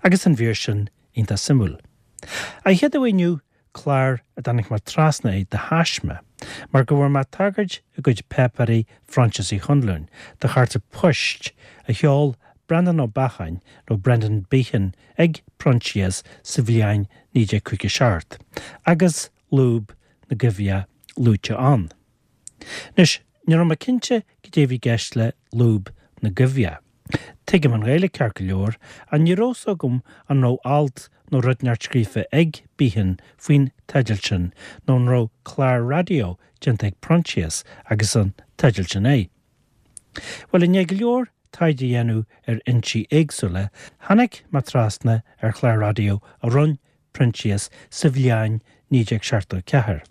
Agus an mhír sin iontach suimiúil. An chéad uair inniu clár a dtáinig mé trasna air de thaisme, mar go bhfuair mé tagairt i gcuid páipéirí Phroinsias Uí Chonluain do chárta poist a sheol Breandán Ó Beacháin nó Brendan Behan ag Proinsias sa bhliain 1957 agus Lúb na gCoimheach luaite ann. Anois, ní raibh mé cinnte cad é a bhí i gceist le lúb na gcoimheach. Tuigim an Ghaeilge ceart go leor, ach ní raibh 's agam an raibh alt nó rud inteacht scríofa ag Behan faoin teideal sin nó an raibh clár raidió déanta ag Proinsias agus an teideal sin air. Bhuel, i ndiaidh go leor taighde a dhéanamh ar fhoinsí éagsúla, tháinig mé trasna ar chlár raidió a rinne Proinsias sa bhliain 1974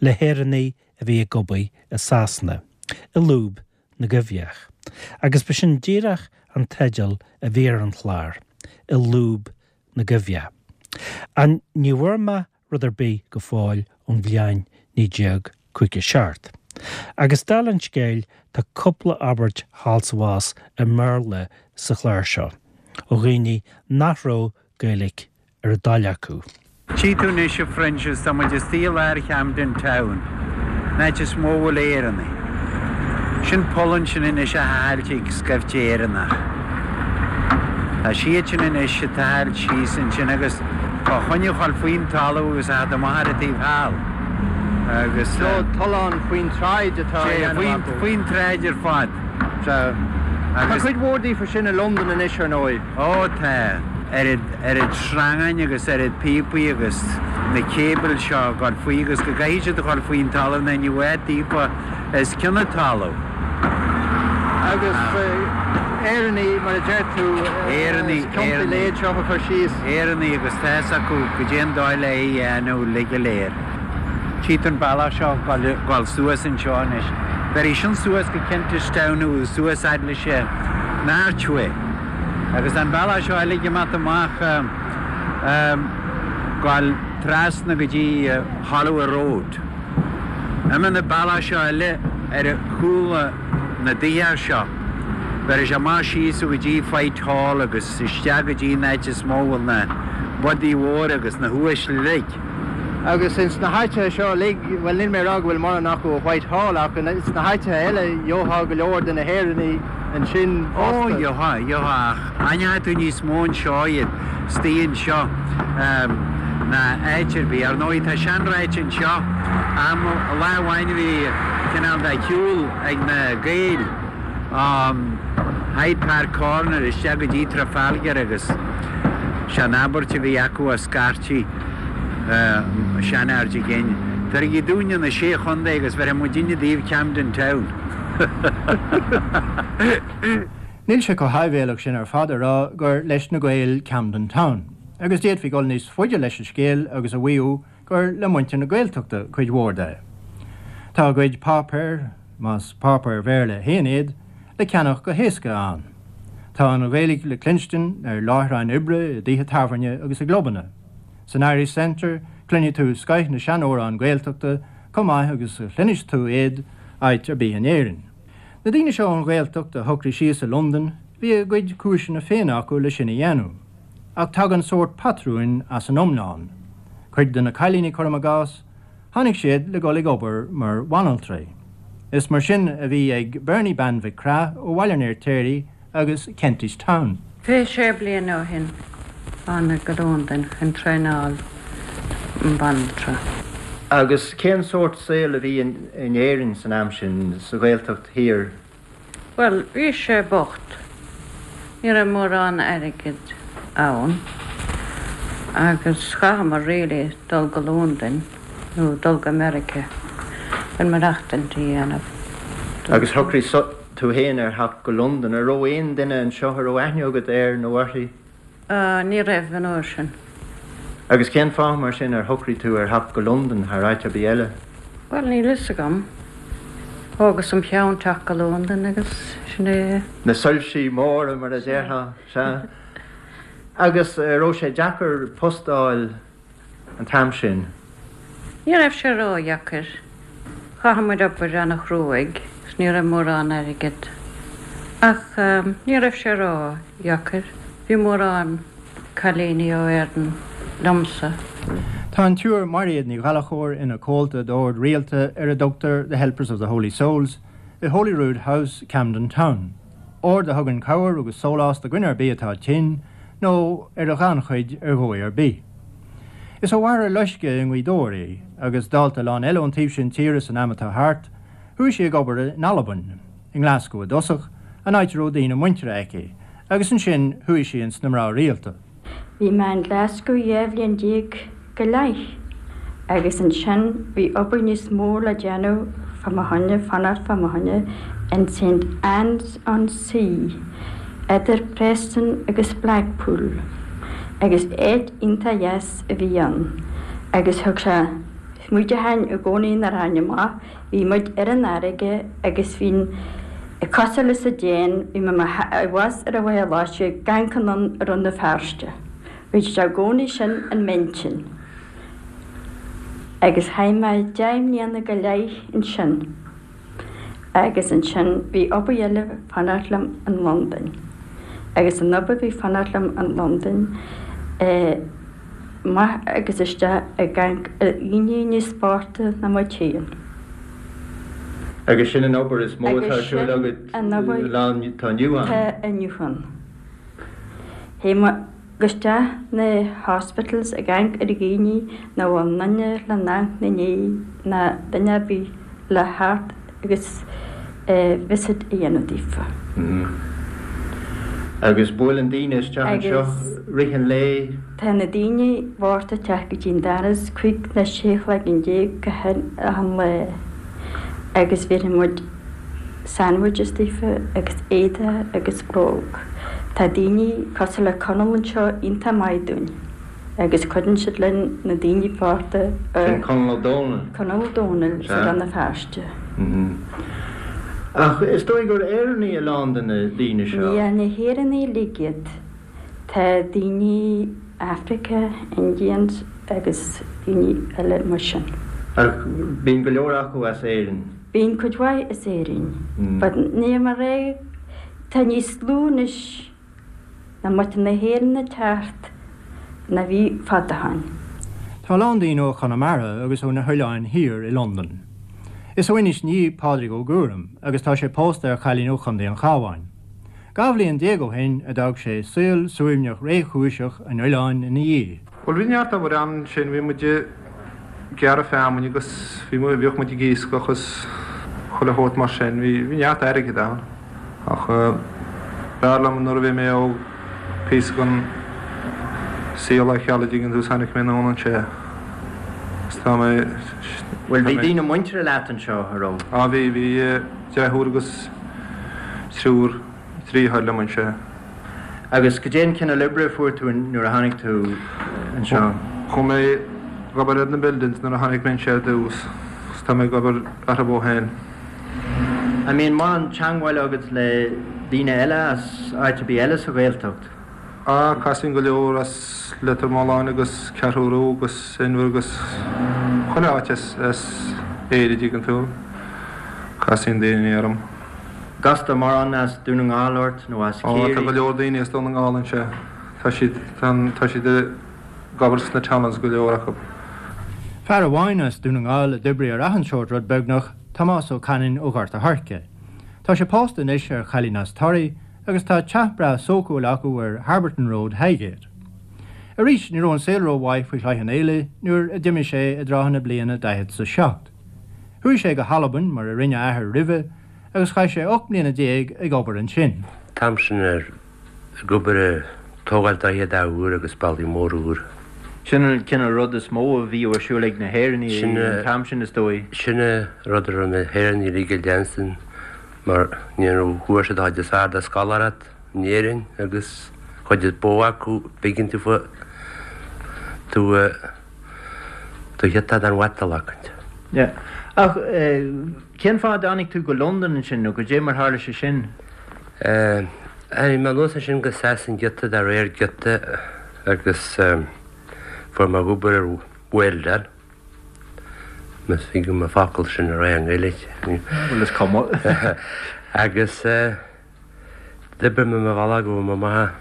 le hÉireannaigh a bhí ag obair i Sasana, i Lúb na gCoimheach, agus ba sin díreach an teideal a bhí ar an chlár, I Lúb na gCoimheach. Ach ní bhfuair mé rud ar bith go fóill ón bhliain 1957. Agus dála an scéil tá cúpla abairt thall 's abhus i mBéarla sa chlár seo, ó dhaoine nach raibh Gaeilge ar a dtoil acu. Tchí tú anois a Phroinsias, tá muid istigh i lár Camden Town, an áit is mó a bhfuil Éireannaigh. Sin poll ansin anois á thochailt ag scaifte Éireannach. Tá siad sin anois ag tochailt síos ansin agus fá choinne a dhul faoin talamh agus a theacht amach ar an taobh thall. Agus. So tollán faoin tsráid atá á dhéanamh acu. Faoin tsráid ar fad. Sea. Tá cuid mhór daofa sin i Londain anois ar ndóigh. Ó tá. Oiread, oiread sreangáin agus oiread píopaí agus na céabail seo ag dul faoi agus go gcaithfidh siad a dhul faoin talamh nó ní bheadh áit daofa os cionn an talamh. Agus Éireannaigh, mar a deir tú, Éireannaigh, as ciontaí Éireannaigh. léid seo a chur síos. Éireannaigh agus tá fhios acu goidé an dóigh le é a dhéanamh uilig go léir. Tchí tú an bealach seo ag dul suas anseo anois. Bhéarfaidh sin suas go Kentish Town nó suas fhad leis an Archway. Agus an bealach seo eile ag imeacht amach gabháil trasna go dtí Holloway Road. Imíonn an bealach seo eile ar chúl na dtithe seo. Bhéarfaidh sé amach síos go dtí Whitehall agus isteach go dtí an áit is mó a bhfuil na bodaigh mhóra agus na huaisle uilig. Agus ins na háiteacha seo uilig, bhuel níl mé ag rá go bhfuil mórán acu i Whitehall ach ins na háiteacha eile gheofá go leor de na hÉireannaigh ansin Ó, fosta. gheofá, gheofá ach aithneoidh tú níos mó anseo iad, istigh anseo ná áit ar bith. Ar ndóigh tá seanráite anseo, am, lá amháin bhí cineál de shiúl ag na Gaeil ó Hyde Park Corner isteach go dtí Trafalgar agus sé an abairt a bhí acu a scairtí, seanfhear de ghin. Tabhairigí dúinne na Sé Chontae agus bhéarfaidh muidinne daoibh Camden Town. Níl sé chomh háibhéalach sin ar fad a rá gur leis na Gaeil Camden Town, agus d'fhéadfaí dul níos faide leis an scéal agus a mhaíomh gur le muintir na Gaeltachta cuid mhór de. Tá a gcuid páipéar, más páipéir Bhéarla féin iad, le ceannach go héasca ann. Tá an Ghaeilge le cluinstin ar láithreáin oibre, i dtithe tábhairne agus i gclubanna. San Irish Centre, cluinfidh tú scoith na seanamhrán Gaeltachta chomh maith agus a chluinfeas tú iad áit ar bith in Éirinn. Na daoine seo ón Ghaeltacht a shocraigh síos i Londain, bhí a gcuid cúiseanna féin acu le sin a dhéanamh. Ach tagann sórt patrúin as an iomlán. Cuid de na cailíní, cuirim i gcás, tháinig siad le dhul ag obair mar bhanaltraí. Is mar sin a bhí ag Bernie Bean Mhic Craith ó Bhaile an Fheirtéaraigh agus Kentish Town. 26 bliain ó shin thánag go Londain chun traenáil banaltra. Agus cén sórt saoil a bhí in Éirinn san am sin, sa Ghaeltacht thiar? Bhuel, bhí sé bocht. Ní raibh mórán airgid ann agus chaitheamar really dul go Londain nó dul go Meiriceá chun maireachtaint a dhéanamh. Agus shocraigh tú féin ar theacht go Londain. An raibh aon duine anseo a raibh aithne agat air nó uirthi? Ní raibh an uair sin. Agus cén fáth mar sin ar shocraigh tú ar theacht go Londain thar áit ar bith eile? Bhuel, níl fhios agam. Thógas im cheann teacht go Londain agus sin é. Na soilsí móra mar a déarfá, sea. Agus raibh sé deacair post a fháil an t-am sin? Ní raibh sé ródheacair. Chaith muid obair ana-chruaidh 's ní raibh mórán airgead. Ach ní raibh sé ródheacair. Bhí mórán. cailíní ó Éirinn liomsa. Tá an tSiúr Mairéad Ní Ghallchóir ina comhalta d'ord rialta ar a dtugtar The Helpers of the Holy Souls i Holyrood House, Camden Town, ord a thugann cabhair agus sólás do dhuine ar bith atá tinn nó ar a ghannchuid ar dhóigh ar bith. Is ó Mhachaire Loiscthe i nGaoth Dobhair í, agus dálta a lán eile ón taobh sin tíre san am atá thart, chuaigh sí ag obair in Albain, i nGlaschú i dtosach, an áit a raibh daoine muinteartha aici, agus ansin chuaigh sí ins na mná rialta. Bhí mé in Glasgow 12 bhliain go leith agus ansin bhí obair níos mó le déanamh fá mo choinne, fanacht fá mo choinne in St Anne's on Sea, idir Preston agus Blackpool agus áit iontach dheas a bhí ann agus thug sé muid a tháin i gcónaí nach raibh amach Bhí muid ar an fharraige agus bhí cosúil leis an déan, bhí mé i bhfas ar an Mhachaire Loiscthe ag amharc anonn ar Rann na Feirste. Bhí sé i gcónaí sin in m'intinn. Agus chaith mé 10 mbliana go leith ansin. Agus ansin bhí obair eile fanacht liom in Londain. Agus an obair a bhí fanacht liom in Londain eh, amach agus isteach ag amharc ar dhaoine níos boichte ná muid féin. Agus sin an obair is mó atá ar siúl agat lá atá inniu ann? Tá inniu ann. Théim isteach na hospitals ag amharc ar dhaoine nach bhfuil duine le n-amharc 'na ndiaidh ná duine ar bith le theacht agus visit a dhéanamh daofa. Agus buaileann daoine isteach anseo rith an lae? Tá na daoine bochta ag teacht go dtí an doras 15 nó 16 a chlog gach achan lá agus bhéarfaidh muid sandwiches daofa agus éadaí agus bróg. Tá daoine cosúil le Conall anseo iontach maith dúinn. Agus cuireann siad linn na daoine bochta a. Sin Conall Ó Dónaill. Conall Ó Dónaill sa Rann na Feirste. Ach is dóigh gur Éireannaigh a lán de na daoine seo. Ní na hÉireannaigh uilig iad. Tá daoine Africa, Indians agus daoine eile mar sin. Ach bíonn go leor acu as Éirinn. Bíonn cuid mhaith as Éirinn. But níl mé a rá, tá níos lú anois. de mhuintir na hÉireann ag teacht ná bhí fad ó shoin. Tá a lán daoine ó Chonamara agus ó na hOileáin Thiar i Londain. Is ó Inis Ní Pádraig Ó Guairim agus tá sé pósta ar chailín ó Chontae an Chabháin. 12 bhliain ó shin a d'fhág sé saol suaimhneach réchúiseach an oileáin ina dhiaidh. Bhuel bhí neart obair ann ansin, bhí muid ag gearradh feamainne agus bhí, bhíodh muid ag iascach agus chuile shórt mar sin, bhí, bhí neart airgid ann. Ach b'fhearr liom nuair a bhí mé óg píosa den saol a cheal a dtuigeann tú is tháinig mé anonn anseo agus tá mé. Bhuel bhí daoine muinteartha leat anseo, a raibh? Á bhí, bhí deirfiúr agus triúr driotháir liom anseo. Agus goidé an cineál oibre a fuair tú nuair a tháinig tú anseo? Chuaigh mé ag obair ar na buildings nuair a tháinig mé anseo ar dtús agus tá mé ag obair orthu ó shin. An mbíonn mórán teangmháil agat le daoine eile as áit ar bith eile sa Ghaeltacht? Á, casaim go leor as Leitir Mealláin agus Ceathrú Rua agus Inbhir agus chuile áit as Éire, dtuigeann tú. Casann daoine orm. Castar mórán as Dún na nGall ort nó as Ciarraí? Á, tá go leor daoine as Dún na nGall anseo. Tá siad, tá siad ag obair sna tunnels, go leor acu. Fear amháin as Dún na nGall a d'oibrigh ar achan seort rud beagnach, Tomás Ó Canainn ó Ghort a' Choirce. Tá sé pósta anois ar chailín as Toraigh agus tá teach breá sócúil acu ar Harberton Road, Highgate. Arís, ní raibh an saol rómhaith faoi Chloich Cheann Fhaola nuair a d'imigh sé i dtrátha na bliana 47. Chuaigh sé go hAlbain, mar a rinne a athair roimhe, agus chaith sé 18 mbliana ag obair ansin. T-am sin ag obair ag tógáil droichead úr agus bealaí móra úr. Sin an cineál rud is mó a bhíodh ar siúl ag na hÉireannaigh an t-am sin, is dóigh. Sin an rud a raibh na hÉireannaigh uilig ag leanstan mar ní raibh fuair siad an chuid is fearr de scoláireacht in Éirinn agus chuid is mó acu b'éigean daofa tú do ghiota den mhatal acu. Yeah. Ach cén fáth a dtáinig tú go Londain ansin nó goidé mar tharla sé sin? Tháinig mé anuas ansin go Sasain giota de réir giota agus fuair mé obair ar welder. Más thig liom an focal sin a rá i nGaeilge. Bhuel is cuma. Agus d'oibrigh mé mo bhealach go raibh mé amach.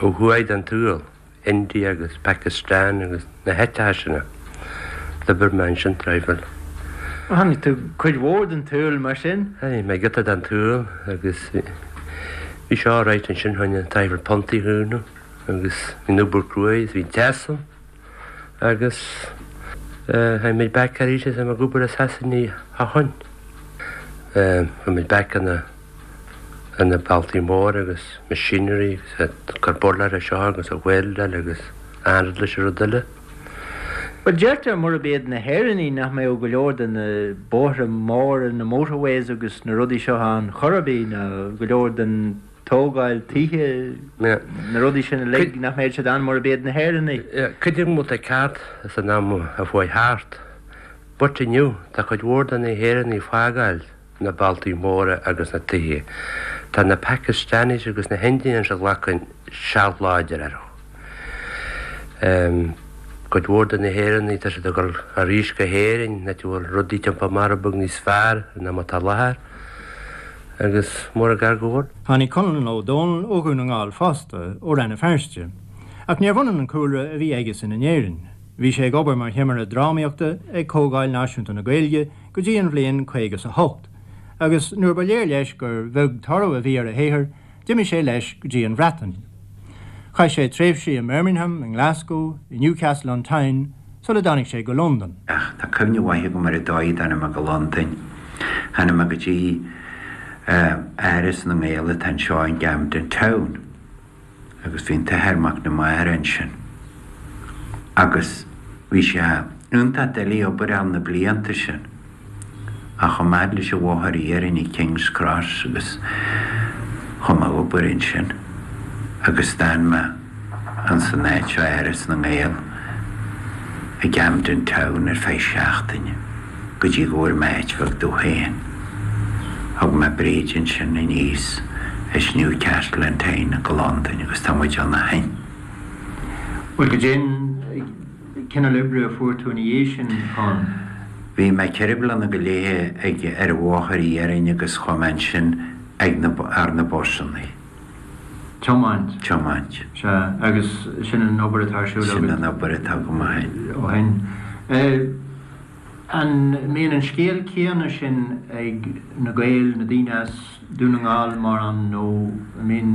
Ó thuaidh den tsaol, India agus Pakistan agus na háiteacha sin. D'oibir mé ansin traidhfil. Chonaic tú cuid mhór den tsaol mar sin? Chonaic mé giota den tsaol agus bhí sé alright ansin choinne traidhfil puntaí a chúnamh agus bhí an obair cruaidh is bhí deas ann agus tháinig muid back arís is ag obair i Sasana ó shoin. Chuaigh muid back ina ar na bealtaí móra agus machinery agus ag cur burláir ar seo agus ag weldáil agus achan rud leis an rud eile. Bhuel, deirtear murab iad na hÉireannaigh nach mbeadh go leor de na bóithre móra, na motorways agus na rudaí seo ann chor ar bith, ná go leor den tógáil tithe, na rudaí sin uilig, nach mbeadh siad ann murab iad na hÉireannaigh. Cuid acu tá ceart san am a chuaigh thart, but inniu tá cuid mhór de na hÉireannaigh ag fágáil. na bealtaí móra agus na tithe. Tá na Pakistanis agus na hIndians ag glacadh seilbh láidir orthu. Cuid mhór de na hÉireannaigh, tá siad ag dul arís go hÉirinn, áit a bhfuil rudaí timpeall mar beag níos fearr ná mar atá i láthair, agus mór an gar go bhfuil. Tháinig Conlon Ó Dónaill ó Dhún na nGall fosta, ó Rann na Feirste. Ach níorbh ionann an cúlra a bhí aigesan in Éirinn. Bhí sé ag obair mar thimire drámaíochta ag Comhdháil Náisiúnta na Gaeilge go dtí an bhliain 58, agus nuair ba léir leis gur bheag toradh a bhí ar a shaothar, d'imigh sé leis go dtí an Bhreatain. Chaith sé tréimhsí i mBirmingham, i nGlasgow, i Newcastle on Tyne, sula dtáinig sé go Londain. Ach tá cuimhne mhaith agam ar an dóigh a dtáinig mé go Londain. Tháinig mé go dtí Áras na nGael atá anseo in Camden Town. agus bhí an tAthair Mac na Mara ansin agus bhí sé iontach doiligh obair a fháil na blianta sin ach chomh fada leis an bhóthar iarainn ag King's Cross agus chuaigh mé ag obair ansin agus d'fhan mé ins an áit seo Áras na nGael i gCamden Town ar feadh seachtaine go dtí go bhfuair mé áit bheag domh féin. Thug mé Bríd ansin aníos as Newcastle on Tyne go Londain agus tá muid ann ó shin. Bhuel, goidé an cineál oibre a fuair tú ina dhiaidh sin, Con? Bhí mé ceithre bliana go leith ag ar an bhóthar iarainn agus chuaigh mé ansin ag na ar na busannaí. Tiomáint. Tiomáint. Sea, agus sin an obair atá ar siúl agat. Sin an obair atá agam ó shin. Ó shin. An mbíonn an scéal céanna sin ag na Gaeil, na daoine as Dún na nGall mórán nó an mbíonn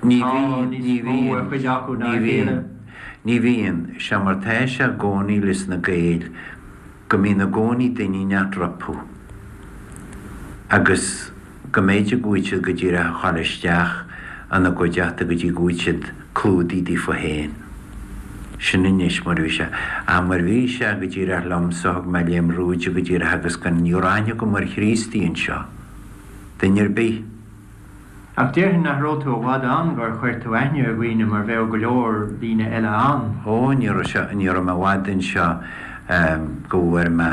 Ní tá bhíonn, níos ní mó ar bhíonn, chuid acu ná ní a bhíonn, chéile? ní bhíonn. Sé mar tá sé i gcónaí leis na Gaeil go mbíonn i gcónaí duine inteacht rompu agus go mb'fhéidir go bhfuil siad go díreach ag ghabháil isteach ina gcuideachta go dtí go bhfuil siad clúdaithe daofa féin. Sin anois mar a bhí sé. Ach mar bhí sé go díreach liomsa, thug mé léim rúide go díreach agus gan ní raibh aithne agam ar Chríostaí anseo. Duine ar bith. Ach déarfainn nach raibh tú i bhfad ann gur chuir tú aithne ar dhaoine mar bheadh go leor daoine eile ann. Ó, ní raibh sé, ní raibh mé i bhfad anseo go bhfuair mé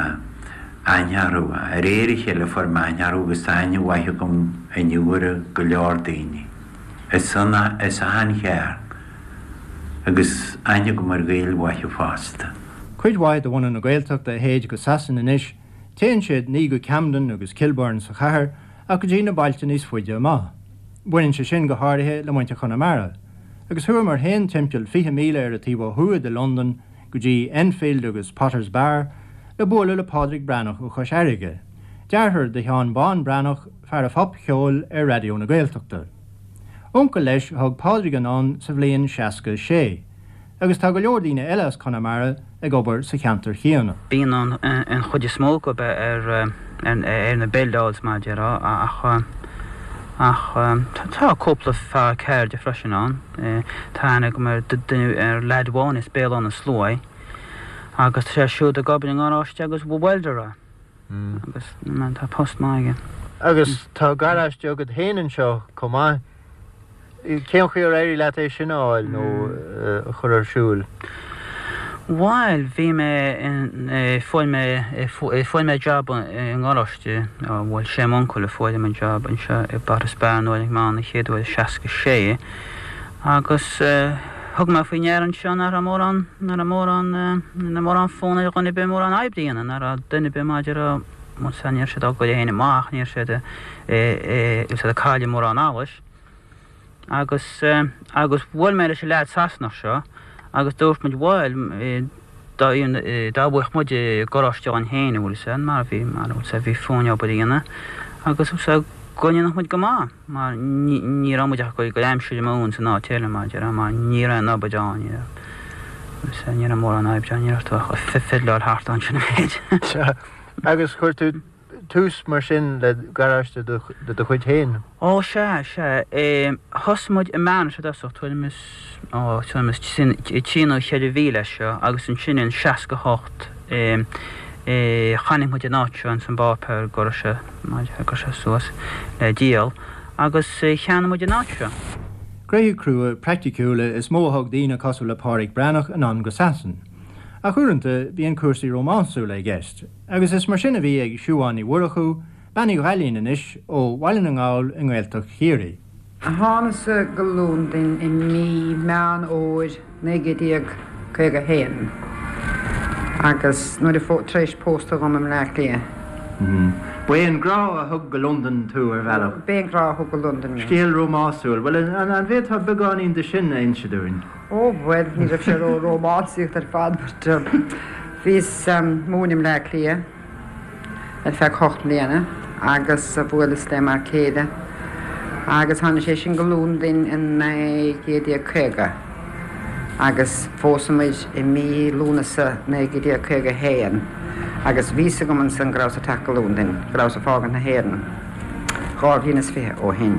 aithne orthu. De réir a chéile fuair mé aithne orthu agus tá aithne mhaith agam inniu ar go leor daoine. As an, as achan chearn. Agus aithne agam ar Ghaeil mhaithe fosta. Cuid mhaith de bhunadh na Gaeltachta a théid go Sasain anois, téann siad ní go Camden agus Kilburn sa chathair ach go dtí na bailte níos faide amach. Baineann sé sin go háirithe le muintir Chonamara. Agus chuamar féin timpeall 20 míle ar an taobh ó thuaidh de Londain go dtí Enfield agus Potters Bar le bualadh le Pádraig Breathnach ó Chois Fharraige, deartháir do Sheán Bán Breathnach, fear an phopcheoil ar Raidió na Gaeltachta. Uncail leis a thug Pádraig anonn sa bhliain 66. Agus tá go leor daoine eile as Conamara ag obair sa cheantar chéanna. Bíonn an chuid is mó acu ar na buildeáils mar a déarfá ach ach tá cúpla fear ceirde freisin ann. Tá aithne agam ar duine ar leaid amháin as Béal Átha na Sluaighe agus tá sé siúd ag obair i ngaráiste agus welder é agus tá post maith aige. Agus tá garáiste agat féin anseo chomh maith. Cén chaoi ar éirigh leat é sin a fháil nó a chur ar siúl? Bhuel, bhí mé, fuair mé, fuair mé jab i ngaráiste, bhuel, sé m'uncail a fuair dom an jab anseo i bPotters Bar nuair a tháinig mé ann an chéad uair i 66 agus thug mé faoi ndeara anseo nach raibh mórán, nach raibh mórán, nach raibh mórán fonn ar dhuine ar bith mórán oibre a dhéanamh, nach raibh duine ar bith maidir a, bhuel, ní raibh siad á gcur féin amach, ní raibh siad, siad ag cailleadh mórán allais. Agus, agus bhuail mé leis an leaid Sasanach seo agus dúirt muid bhuel, dá, dá bhfaigheadh muid garáiste againn féin, an bhfuil 'fhios a'd, mar bhí, mar, bhfuil 'fhios a'd, bhí fúinn obair a dhéanamh agus, bhfuil 'fhios a'd, go ndéanfadh muid go maith mar ní, ní raibh muid ach ag cur aimsir amú ins an áit eile mar a déarfá mar ní raibh aon obair ann, ní raibh, bhfuil 'fhios a'd, ní raibh mórán oibre ann, ní raibh tú ach ag fiddleáil thart ansin an méid. Sea, agus chuir tú tús mar sin le garáiste de do chuid féin? Ó, sea, sea. Thosaigh muid i mBearna i dtosach, tuairim is, ó, tuairim is trí nó cheithre mhíle as seo agus ansin in 68 chonaic muid an áit seo ins an bpáipéar go raibh sé, go raibh sé suas le díol agus cheannaigh muid an áit seo. Gnoithe crua praiticiúla is mó a thug daoine cosúil le Pádraic Breathnach anonn go Sasain. Ach uaireanta bíonn cúrsaí rómánsúla i gceist. Agus is mar sin a bhí ag Siubhán Ní Mhurchú, Bean Uí Ghaillín anois, ó Bhaile na nGall i nGaeltacht Chiarraí. Thánasa go Londain i mí Meán Fhómhair 1951 agus nuair a tar éis pósta dhom i mBleá Cliath. Ba é an grá a thug go Londain tú, ar bhealach. B'é an grá a thug go Londain mé. Scéal rómásúil. Bhuel, an bhféadfá beagáinín de sin a inse dúinn? Ó, bhuel, ní raibh sé ró-rómánsaíocht ar fad but bhíos ag múineadh i mBleá Cliath ar feadh hocht mbliana agus bhuaileas le m'fhear céile agus tháinig sé sin go Londain in 1950 agus phós muid i mí Lúnasa 1951 agus bhí 'fhios agam ansan go rabhas ag teacht go Londain, go rabhas ag fágaint na hÉireann. 2 bhliain is 20 ó shin.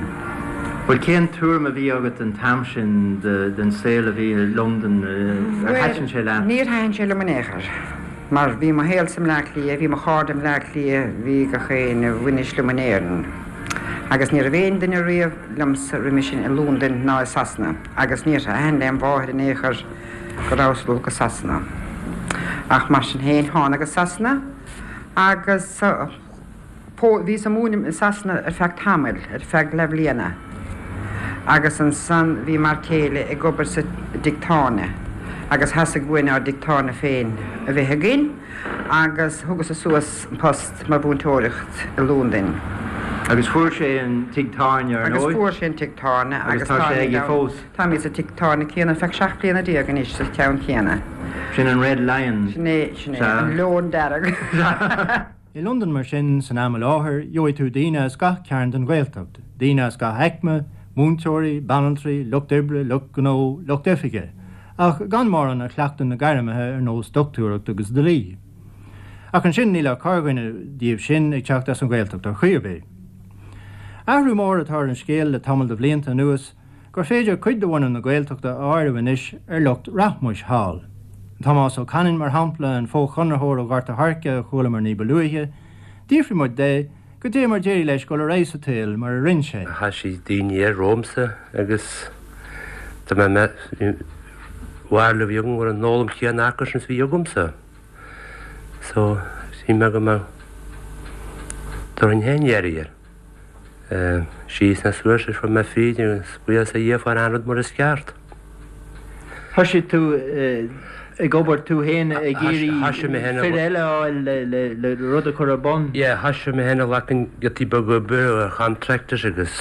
Bhuel, cén tuairim a bhí agat an t-am sin den saol a bhí i Londain? Ar thaitin sé leat? Bhuel, níor thaitin sé liom in aon chor, mar bhí mo shaolsa i mBleá Cliath, bhí mo chairde i mBleá Cliath, bhí gach éinne a bhainis liom in Éirinn. Agus ní raibh aon duine riamh liomsa roimhe sin i Londain ná i Sasana, agus níor thaitin lem mháthair in aon chor go rabhas ag dul go Sasana. Ach mar sin féin, thánag go Sasana agus. Bhíos ag múineadh i Sasana ar feadh tamaill, ar feadh leathbhliana, agus ansan bhí m'fhear céile ag obair sa dtigh tábhairne agus theastaigh uainn ár dtigh tábhairne féin a bheith againn agus thugas-sa suas an post mar mhúinteoireacht i Londain. Agus fuair sé an tigh tábhairne, ar ndóigh? Agus fuair sé an tigh tábhairne agus tá sé aige fós. Táimid sa tigh tábhairne céanna ar feadh 17 bliana anois, sa cheann céanna. Sin an Red Lion. Sin é, sin é, an Leon Dearg. I Londain mar sin, san am i láthair, gheobhaidh tú daoine as gach cearn den Ghaeltacht, daoine as gach aicme, múinteoirí, banaltraí, lucht oibre, lucht gnó, lucht oifige, ach gan mórán a chleachtann na gairmithe ar nós dochtúireacht agus dlí. Ach ansin níl ach corrdhuine díobh sin ag teacht as an Ghaeltacht ar chaoi ar bith. Athrú mór atá ar an scéal le tamall de bhlianta anuas, gur féidir cuid de bhunadh na Gaeltachta a áireamh anois ar lucht rachmais thall. Tomás Ó Canainn, mar shampla, an fo-chonraitheoir ó Ghort a' Choirce a chualamar ní ba luaithe, d'fhiafraigh muid de goidé mar d'éirigh leis dul ar aghaidh sa tsaol mar a rinn sé. Thoisigh daoine air romhamsa agus tá mé mé bharúil a bhí agam go raibh an fhoghlaim chéanna acusan is a bhí agamsa. So, shíl mé go mbeadh dtabharfainn féin iarraidh air. Síos na suas is fuair mé fríd agus buíochas a Dhia fuair an rud mar is ceart. Thoisigh tú ag obair tú féin ag iarraidh fir eile a fháil le rud a chur ar bun? Yeah, thoisigh mé féin ag glacann giotaí beaga oibre ar contractors agus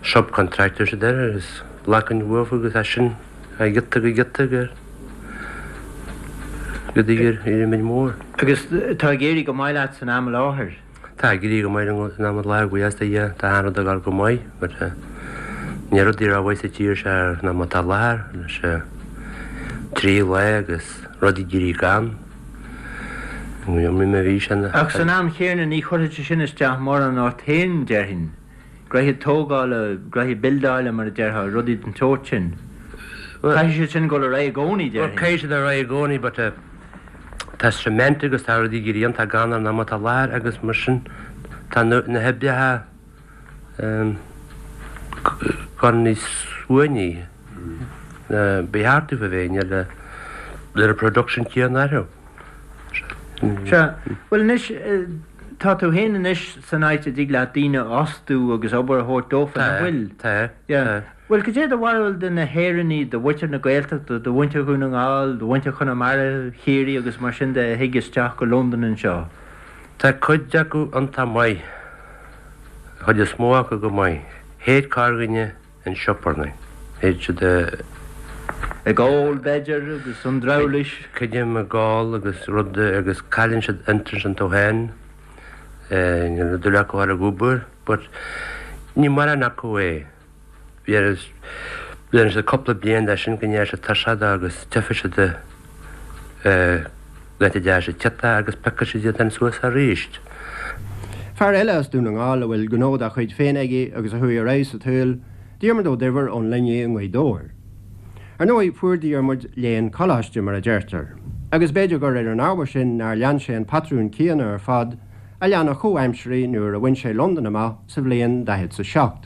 subcontractors a deir agus ghlacainn uafa agus as sin ó ghiota go giota go go dtí gur éirigh muid mór. Agus tá ag éirí go maith leat san am i láthair? Tá ag éirí go maith liom san am i láthair, buíochas do Dhia. Tá an rud ag dul go maith but níl rudaí rómhaith sa tír seo ná mar atá i láthair leis an trí lá agus rudaí ag éirí gann. Ní bhí sé na. Ach san am chéanna ní chuirfeadh sé sin isteach mórán ort féin, déarfainn. Gnoithe tógála, gnoithe bildeála mar a déarfá, rudaí den tsórt sin. Caithfidh siad sin dul ar aghaidh i gcónaí, déarfainn. Bhuel, caithfidh siad ar aghaidh i gcónaí but tá cement agus tá rudaí ag éirí iontach gann ar an am atá i láthair agus mar sin tá na hoibreacha ag dul níos uainní ná ba cheart dóibh a bheith, níl an production céanna orthu. Sea. Bhuel anois, tá tú féin anois san áit a dtig leat daoine a fhostú agus obair a thabhairt dófa, nach bhfuil? Tá, tá. Bhuel, cad é do bharúil de na hÉireannaigh, de mhuintir na Gaeltachta, de mhuintir Dhún na nGall, de mhuintir Chonamara, Chiarraí agus mar sin de a thig isteach go Londain anseo? Tá cuid acu iontach maith, an chuid is mó acu go maith. Théid corrdhuine in sioparnaí. Théid siad a. Ag ól, b'fhéidir, agus an drabhláis. Creidim ag ól agus rud agus cailleann siad interest iontu féin. Níl dúil acu a dhul ag obair but ní mórán acu é. Bhí siad cúpla bliain de sin go ndeachaigh siad tuirseach de agus tiocfaidh siad laethanta deasa ciotach agus piocfaidh siad iad féin suas arís. Fear eile as Dún na nGall a bhfuil gnó dá chuid féin aige agus a chuaigh ar aghaidh sa tsaol, Diarmuid Ó Duibhir ón Luinnigh i nGaoth Dobhair. Ar ndóigh, fuair Diarmuid léann coláiste, mar a deirtear, agus b'fhéidir gur ar an ábhar sin nár lean sé an patrún céanna ar fad a lean a chomhaimsirí nuair a bhain sé Londain amach sa bhliain daichead 's a seacht.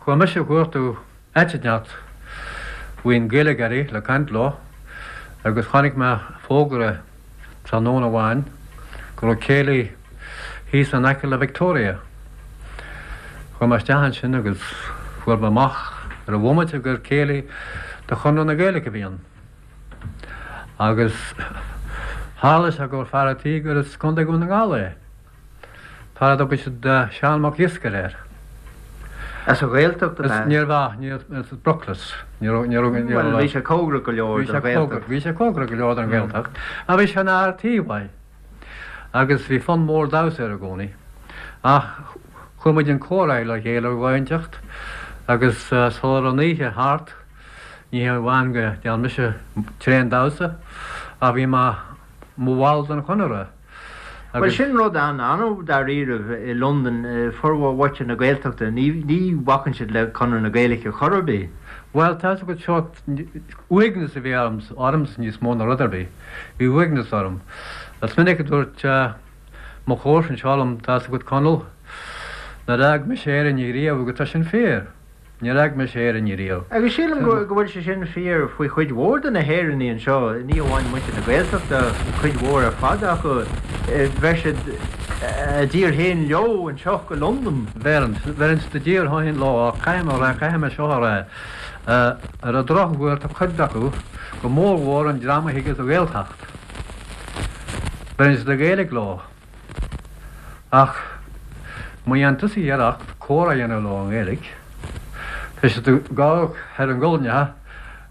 Chuaigh mise a chuartú áit inteacht bhfuil Gaeilgeoirí le caint leo agus chonaic mé fógra tráthnóna amháin go raibh céilí thíos in aice le Victoria. Chuaigh mé isteach ansin agus fuair mé amach ar an bhomaite gur céilí de Chonradh na Gaeilge a bhí ann. Agus tharla sé gur fear a' tí gur as Contae Dhún na nGall é. Fear a dtugadh siad Seán Mac Iascaire air. As an Ghaeltacht ab ea? Níorbh ea, ní as Bruclas. Ní raibh, ní raibh, ní raibh. Bhuel, bhí sé cóngarach go leor don Ghaeltacht. Bhí sé cóngarach go leor don Ghaeltacht. Ach bhí sé ina fhear tí mhaith. Agus bhí fonn mór damhsa air i gcónaí. Ach chuir muid an comhrá le chéile ar dhóigh inteacht agus sula raibh an oíche thart, Ní hé amháin go ndearna mise tréan damhsa ach bhí mé mo bhall den Chonradh Bhuel, agus. sin rud an-annamh dáiríribh i Londain, formhór mhuintir na Gaeltachta, ní ní bhacann siad le Conradh na Gaeilge chor ar bith. Bhuel, tá 'fhios agat seo, uaigneas a bhí orm, ormsa níos mó ná rud ar bith. Bhí uaigneas orm. Is minic a dúirt mo chomharsa anseo liom, tá 'fhios agat Conall, nár fhág mise Éirinn riamh agus tá sin fíor. Níor fhág mise Éirinn riamh. Agus sílim go bhfuil sé sin fíor faoi chuid mhór de na hÉireannaigh anseo, ní amháin muintir na Gaeltachta, cuid mhór ar fad acu, bheir siad a dtír féin leo anseo go Londain. Bheireann, bheireann siad a dtír féin leo ach caithfidh mé a rá, caithfidh mé seo a rá, ar an drochuair tá cuid acu, go mórmhór an dream a thig as an Ghaeltacht, beireann siad an Ghaeilge leo. Ach má dhéanann tusa iarracht comhrá a dhéanamh leo i nGaeilge, tá siad ag gabháil thar a nguailneacha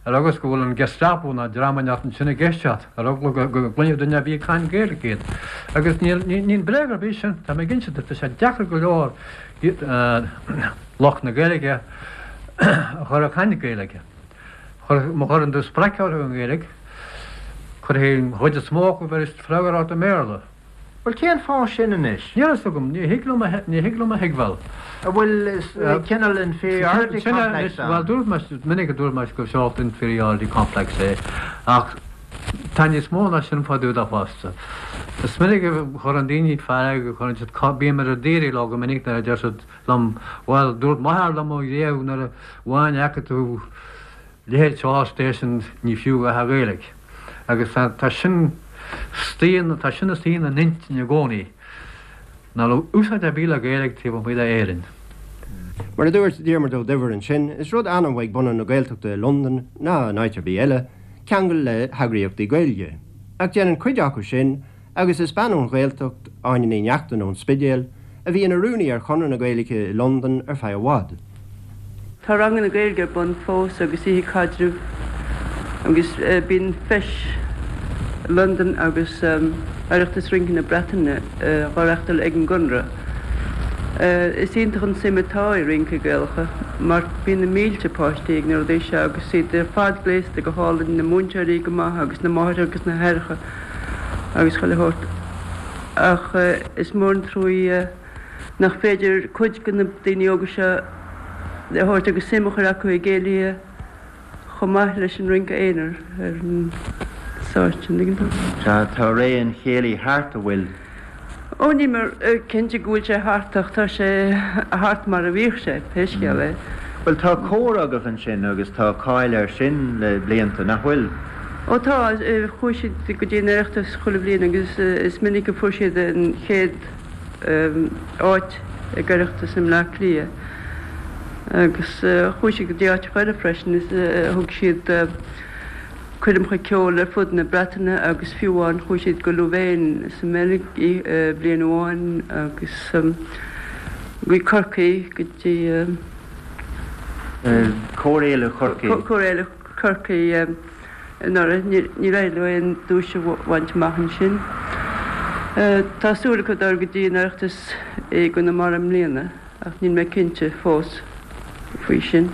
ar eagla go bhfuil an Gestapo nó dream inteacht ansin ag éisteacht ar eagla go gcluinfeadh duine ar bith ag caint Gaeilge iad. Agus níl bréag ar bith sin, tá mé ag inse duit, tá sé deacair go leor lucht na Gaeilge a chur ag caint Gaeilge. Má chuireann tú spreacadh orthu i nGaeilge, cuirfidh an chuid is mó acu bheir freagra ort i mBéarla. Bhuel, cén fáth sin anois? Níl a fhios agam, ní thig liom a, ní thig liom a thuigbheáil. An bhfuil cineál inferiority complex ann? Bhuel, dúirt mé, is minic a dúirt mé gur sórt inferiority complex é, ach tá níos mó ná sin fá dtaobh de fosta. Is minic a chuireann daoine fearg, a chuireann siad, bím ar daoire leo go minic nuair a deir siad liom, bhuel, dúirt m'athair liom riamh nuair a amháin a fheiceann tú leithéid seo station ní fiú a dhath a Ghaeilge. Agus tá sin istigh, tá sin istigh ina n-intinn i gcónaí, nach raibh úsáid ar bith le Gaeilge taobh amuigh d'Éirinn. Mar a dúirt Diarmuid Ó Duibhir ansin, is rud annamh ag bunadh na Gaeltachta i Londain, ná in áit ar bith eile, ceangal le heagraíochtaí Gaeilge. Ach déanann cuid acu sin, Agus is bean ón Ghaeltacht, Áine Ní Neachtain ón Spidéal, a bhí ina rúnaí ar Chonradh na Gaeilge i Londain ar feadh i bhfad. Tá ranganna Gaeilge ar bun fós agus oíche caidrimh agus bíonn Feis Londan agus Oireachtas Rince na Breataine á reachtáil ag an gConradh. Is iontach an suim atá i rince Gaelacha mar bíonn na mílte páistí ag na rudaí seo agus iad ar fad gléasta go hálainn, na múinteoirí go maith agus na máithreacha agus na haithreacha. agus chuile shórt. Ach is mór an truaí nach féidir cuid de na daoine óga seo a thabhairt agus suim a chur acu i gcéilithe chomh maith leis an rince aonair ar an stáitse, an dtuigeann tú? Tá, tá ré an chéilí thart, an bhfuil? Ó, níl mé cinnte go bhfuil sé thart ach tá sé thart mar a bhíodh sé, pé scéal é. Bhuel, tá cór agaibh ansin agus tá cáil air sin le blianta, nach bhfuil? Ó tá, chuaigh siad go dtí an Oireachtas chuile bhliain agus is minic a fuair siad an chéad áit ag Oireachtas i mBleá Cliath. Agus chuaigh siad go dtí áiteacha eile freisin, is thug siad. coirmeacha ceoil ar fud na Breataine agus fiú amháin chuaigh siad go Louvain sa mBeilg bliain amháin agus. Go Corcaigh, go dtí. Cór Fhéile Chorcaí. Cór Fhéile Chorcaí anuraidh. Níor éirigh leo aon duais a bhaint amach ansin. Tá súil acu dul go dtí an Oireachtas i gConamara i mbliana ach níl mé cinnte fós faoi sin.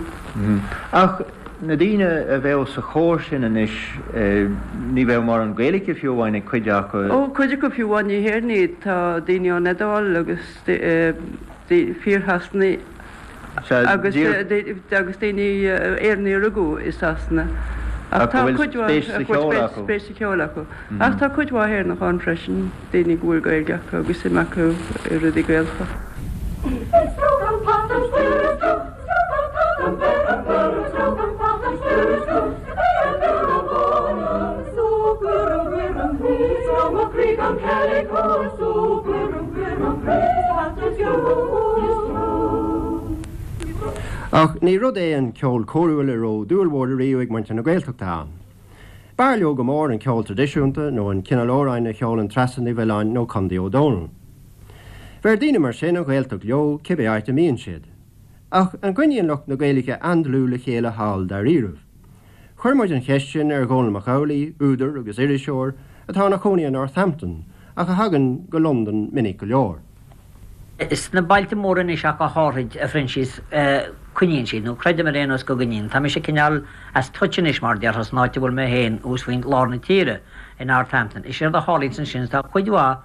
Ach na daoine a bheadh sa chór sin anois, ní bheadh mórán Gaeilge fiú amháin ag cuid acu. Ó, cuid acu fiú amháin ní hÉireannaigh iad. Tá daoine ón Iodáil agus fíor-Shasanaigh agus agus daoine Éireannaigh a rugadh i Sasana. Ach tá cuid mhaith spéis sa cheol acu. Ach tá cuid mhaith Éireannach ann freisin, daoine go bhfuil Gaeilge acu agus suim acu i rudaí Gaelacha. Ach ní rud é an ceol córúil a raibh dúil mhór ariamh ag muintir na Gaeltachta ann. B'fhearr leo go mór an ceol traidisiúnta nó an cineál amhráin a cheolann Treasa Ní Mhiolláin nó Condaí Ó Dónaill. Bheir daoine mar sin an Ghaeltacht leo cibé áit a mbíonn siad. Ach an gcoinníonn lucht na Gaeilge an-dlúth le chéile thall dáiríribh? Chuir muid an cheist sin ar Dhónall Mac Amhlaigh, údar agus iriseoir, atá ina chónaí i Northampton ach a thagann go Londain minic go leor. Sna bailte móra anois ach go háithrid, a Phroinsias, coinníonn siad, nó creidim ar aon nós go gcoinníonn. Tá mise cineál as touch anois, mar a déarfá, san áit a bhfuil mé féin, thuas faoin lár na tíre, i Northampton. Is éard a tharlaíonns ansin, tá cuid mhaith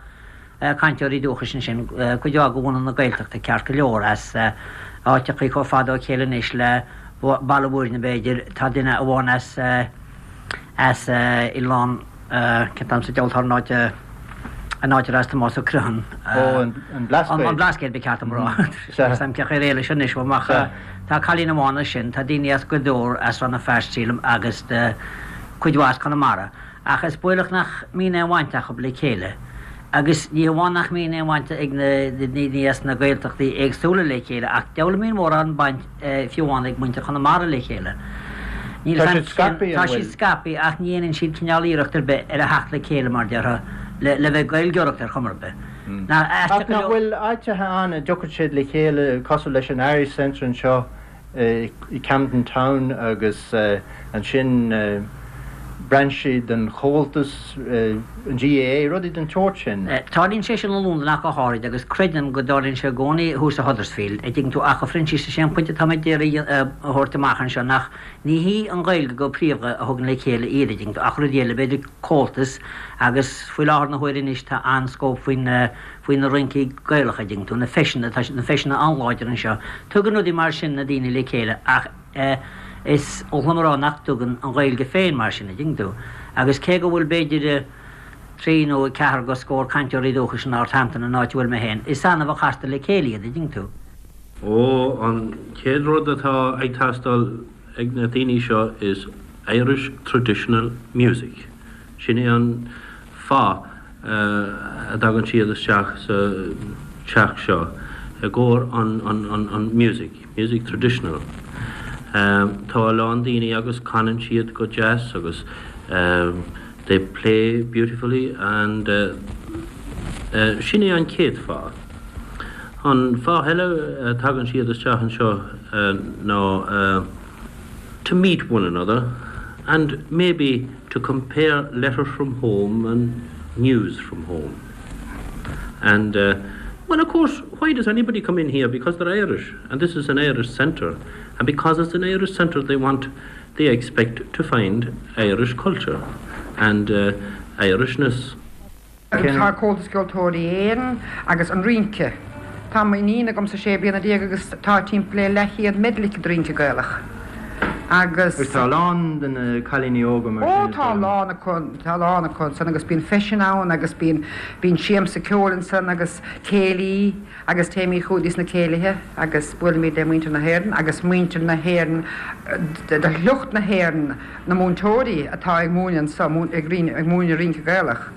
cainteoirí dúchais ansin, cuid mhaith de bhunadh na Gaeltachta, ceart go leor, as áiteachaí chomh fada ó chéile anois le Baile Bhuirne, b'fhéidir. Tá duine amháin as, as Oileán, cén t-ainm sa diabhal atá ar an áit, an áit ar as Tomás Ó Criomhthain. Ó, an Blascaod. An Blascaod, ba cheart dom a rá. Sea. Níl 's a'm cén chaoi ar éalaigh sin anois uaim ach tá cailín amháin as sin, tá daoine as Gaoth Dobhair, as Rann na Feirste, sílim, agus cuid mhaith as Conamara. Ach is baolach nach mbíonn aon bhaint acu le chéile. Agus ní hamháin nach mbíonn aon bhaint ag na daoine as na Gaeltachtaí éagsúla le chéile, ach deabhal a mbíonn mórán baint fiú amháin ag muintir Chonamara le chéile. Níl Tá siad scaipthe, an Tá siad bhfuil? scaipthe ach ní dhéanann siad cineál iarracht ar bith ar a theacht le chéile, mar déarfá, le le bheith ag Gaeilgeoireacht ar chuma ar bith. Ach nach bhfuil áiteacha ann a dtiocfaidh siad le chéile cosúil leis an Irish Centre anseo i Camden Town agus ansin brainsí den Chomhaltas, an GAA, rudaí den tsórt sin. Tarlaíonn sé sin i Londain ach go háirid agus creidim go dtarlaíonn sé i gcónaí thuas i Huddersfield, a' dtuigeann tú, ach a Phroinsias is é an pointe atá mé d'iarraidh a thabhairt amach anseo nach ní hí an Ghaeilge go príomha a thugann le chéile iad, a' dtuigeann tú, ach rudaí eile, b'fhéidir Comhaltas agus faoi láthair na huaire anois tá an-scóp faoin faoi na rincí Gaelacha, a dtuigeann tú, na feiseanna, tá na feiseanna an-láidir anseo. Tugann rudaí mar sin na daoine le chéile ach is oth liom a rá nach dtugann an Ghaeilge féin mar sin, a dtuigeann tú. Agus cé go bhfuil b'fhéidir trí nó ceathair go scór cainteoirí dúchais in Northampton, an áit a bhfuil mé féin, is annamh a chastar le chéile iad, a dtuigeann tú. Ó, an chéad rud atá ag teastáil ag na daoine seo is Irish traditional music. Sin é an fáth a dtagann siad isteach sa teach seo, i gcomhair an music, music traditional. Tá a lán daoine agus canann siad go deas agus they play beautifully and sin é an chéad fáth. An fáth eile a dtagann siad isteach anseo ná to meet one another and maybe to compare letters from home and news from home. And uh, well, of course, why does anybody come in here? Because they're Irish, and this is an Irish centre. And because it's an Irish centre, they want, they expect to find Irish culture and uh, Irishness. Tá Comhaltas Ceoltóirí Éireann agus an rince. Tá m'iníon agamsa 16 bliana agus tá timpeall le leathchéad medal aici de rince Gaelach. Agus. Agus tá a lán de na cailíní óga mar sin Ó tá a lán acu, tá a lán acu ansan agus bíonn feiseanna ann agus bíonn, bíonn siamsa ceoil ansan agus céilí agus téimid chuig sna céilithe agus buailimid le muintir na hÉireann agus muintir na hÉireann, de shliocht na hÉireann, na múinteoirí atá ag múineadh anso, ag múineadh rince Gaelach.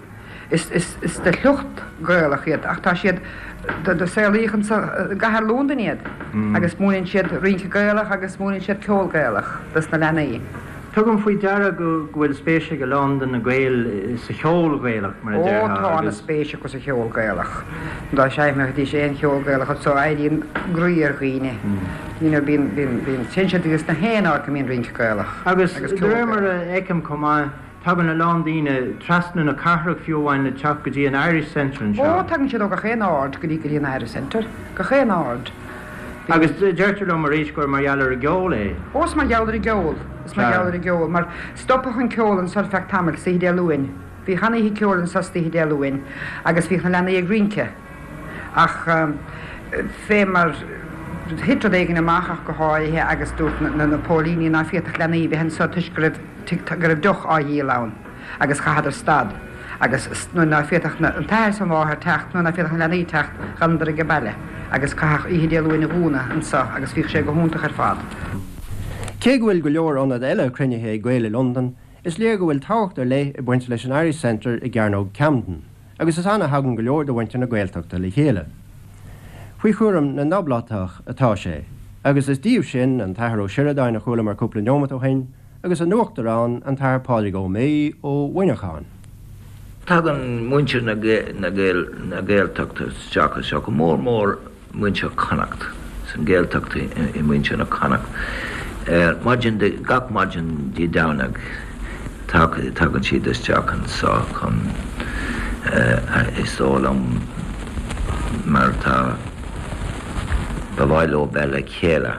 Is de shliocht Gaelach iad ach tá siad, do saolaíodh anso i gcathair Londain iad agus múineann siad rince Gaelach agus múineann siad ceol Gaelach dos na leanaí. Tugaim faoi deara go bhfuil spéis ag a lán de na Gaeil sa cheol Gaelach, mar a Ó, déarfá, tá agus. ana-spéis acu sa cheol Gaelach. Dá seinnfidís aon cheol Gaelach anso, éiríonn groí ar dhaoine. You know, bíonn, bíonn, bíonn, téann siad agus na haon áit go mbíonn rince Gaelach Agus agus de ceol réir mar Gaelach. a fheicim chomh maith, tagann a lán daoine trasna na cathrach fiú amháin le teacht go dtí an Irish Centre Ó, anseo. tagann siad ó gach aon aird go dtí, go dtí an Irish Centre, gach aon aird. Agus deirtear liom arís gur mar gheall ar an gceol é. Ó, is mar gheall ar an gceol. Is mar gheall ar an gceol. Mar stopadh an ceol anso ar feadh tamaill, istoíche Dé Luain. Bhíodh an-oíche ceoil anso istoíche Dé Luain agus bhíodh na leanaí ag rince. Ach fé mar thit rud éigin amach ach go háirithe agus dúirt na póilíní ná féadfadh leanaí bheith anso toisc go raibh, go raibh deoch á dhíol ann. agus chaitheadar stad, agus nuair ná féadfadh an t-athair is an mháthair teacht, nuair ná féadfadh na leanaí teacht, dh'fhanadar age baile, agus caitheadh oíche Dé Luain a dhúnadh anso, agus bhíodh sé go hiontach ar fad. Cé go bhfuil go leor ionad eile cruinnithe ag Gaeil i Londain, is léir go bhfuil tábhacht ar leith ag baint leis an Irish Centre i gCearnóg Camden, agus is ann a thagann go leor de mhuintir na Gaeltachta le chéile. Faoi chúram na nOblátach atá sé, agus is díobh sin an tAthair Ó Sioradáin a chualamar cúpla neomat ó shin, agus a n-uachtarán, an tAthair Pádraig Ó Méith ó Mhuineachán. Tagann muintir na Gaeltachta isteach anseo, go mór mór muintir Chonnacht, san Gaeltacht i muintir na Connacht. Ar maidin, gach maidin Dé Domhnaigh tagann siad isteach anseo chun, is dóigh liom, mar tá, ba mhaith leo bheith le chéile.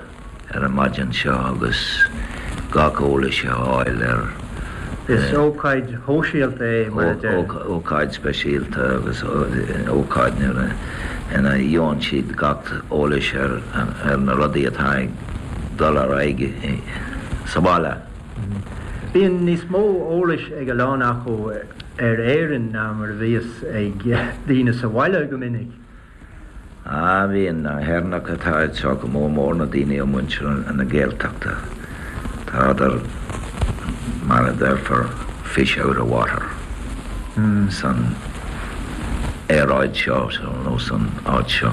ar an maidin seo agus gach eolais a fháil ar. Is ócáid shóisialta é, mar a deir. Ócáid speisialta agus ócáid nuair ina gheobhann siad gach eolais ar na rudaí atá ag dul ar aghaidh sa bhaile. Bíonn níos mó eolais ag a lán acu ar Éirinn ná mar a bhíos ag daoine sa bhaile go minic. Ah, bíonn na hÉireannacha atá anseo, go mór mór na daoine ó muintir na Gaeltachta, tádar, mar a déarfar, fish out of water san aeráid seo nó san áit seo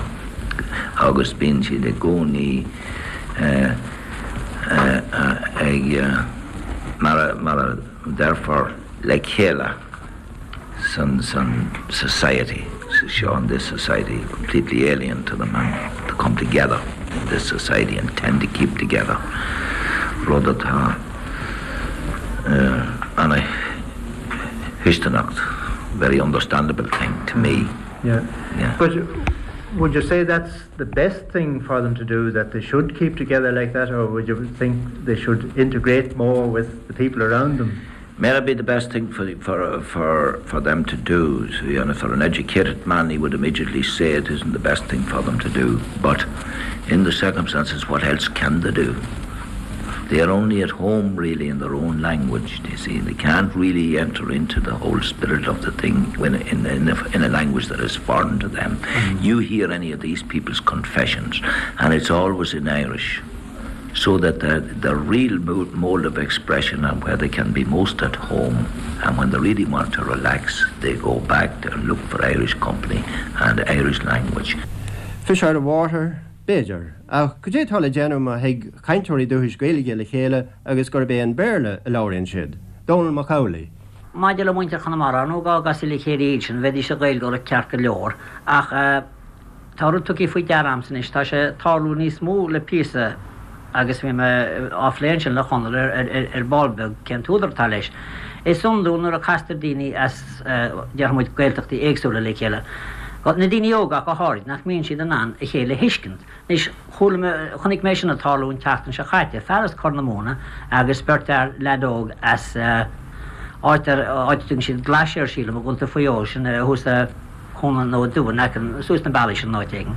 agus bíonn siad i gcónaí ag, mar a déarfar, le chéile. san san society seo in this society completely alien to them and to come together in this society and tend to keep together rud atá ana thuisceanach very understandable thing to me. Yeah. Yeah. But would you say that's the best thing for them to do that they should keep together like that or would you think they should integrate more with the people around them? May be the best thing for, for, for, for them to do. So, you know, for an educated man, he would immediately say it isn't the best thing for them to do. But in the circumstances, what else can they do? They are only at home really in their own language, you see. They can't really enter into the whole spirit of the thing when in, in, a, in a language that is foreign to them. Mm -hmm. You hear any of these people's confessions, and it's always in Irish so that the, the real mode of expression and where they can be most at home and when they really want to relax, they go back to look for Irish company and Irish language. Fish out of water, b'fhéidir, ach cad é atá le déanamh má thig cainteoirí dúchais Gaeilge le chéile agus gurb é an Béarla a labhraíonn siad? Dónall Mac Amhlaigh. Maidir le muintir Chonamara, ar ndóigh dá gcasfaí le chéile iad sin, bheidís ag Gaeilgeoireacht ceart go leor, ach Tá rud tugtha faoi deara a'msa anois, tá sé ag tarlú níos mó le píosa agus bhí mé á phlé ansin le Chonall ar ball beag cén t-údar atá leis. Is iondúil nuair a castar daoine as, déarfaidh muid, Gaeltachtaí éagsúla le chéile, na daoine óga ach go háirid, nach mbíonn siad in ann a chéile a thuiscint. Anois, chuala mé, chonaic mé sin ag tarlú an tseachtain seo chaite, fear as Corr na Móna agus beirt fhear, leaid óg as áit ar, áit a dtugann siad Glaise air sílim, i gContae Mhaigh Eo, sin thuas i. Chonnacht nó Dumha Neacain suas na bealaí sin in áit éigin.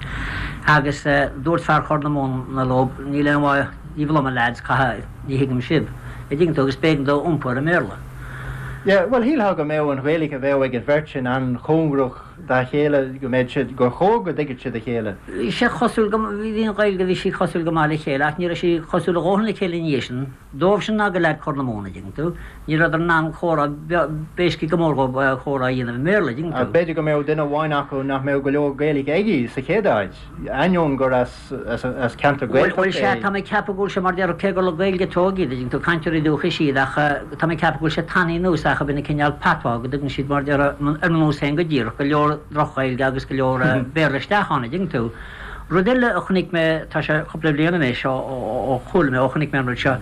Agus dúirt fear Chorr na Móna leo, níl aon mhaith daoibh liom, a lads, caithfidh, ní thuigim sibh. A' dtuigeann tú, agus b'éigean dó iompú ar an mBéarla. Yeah, bhuel, shílfeá go mbeadh an Ghaeilge a bheadh ag an bheirt sin an-chóngarach. dá chéile, go mbeadh siad, gur chóir go dtuigfeadh siad a chéile. Bhí sé cosúil go, bhí an Ghaeilge, bhí sí cosúil go maith le chéile ach ní raibh sí cosúil a dhóthain le chéile ina dhiaidh sin. Dóibhsean ná do leaid Corr na Móna, dtuigeann tú. Ní rabhadar in ann comhrá, b'éasca go mór dhóibh comhrá a dhéanamh i mBéarla, dtuigeann tú. B'fhéidir go mbeadh duine amháin acu nach mbeadh go leor Gaeilge aige sa chéad áit, ainneoin gur as ceantar Gaeltachta é. Bhuel, sea, tá mé ag ceapadh go bhfuil sé mar déarfá, cé gur le Gaeilge a tógadh iad, dtuigeann tú, cainteoirí dúchais iad, ach tá mé ag ceapadh go bhfuil sé tanaí anuas acu ina cineál patois, go dtugann siad mar déarfá, ar mo nós féin go díreach, go leor droch-Ghaeilge agus go leor Béarla isteach ann, dtuigeann tú. Rud eile a chonaic mé, tá sé cúpla bliain anois ó chuala mé, ó chonaic mé an rud seo,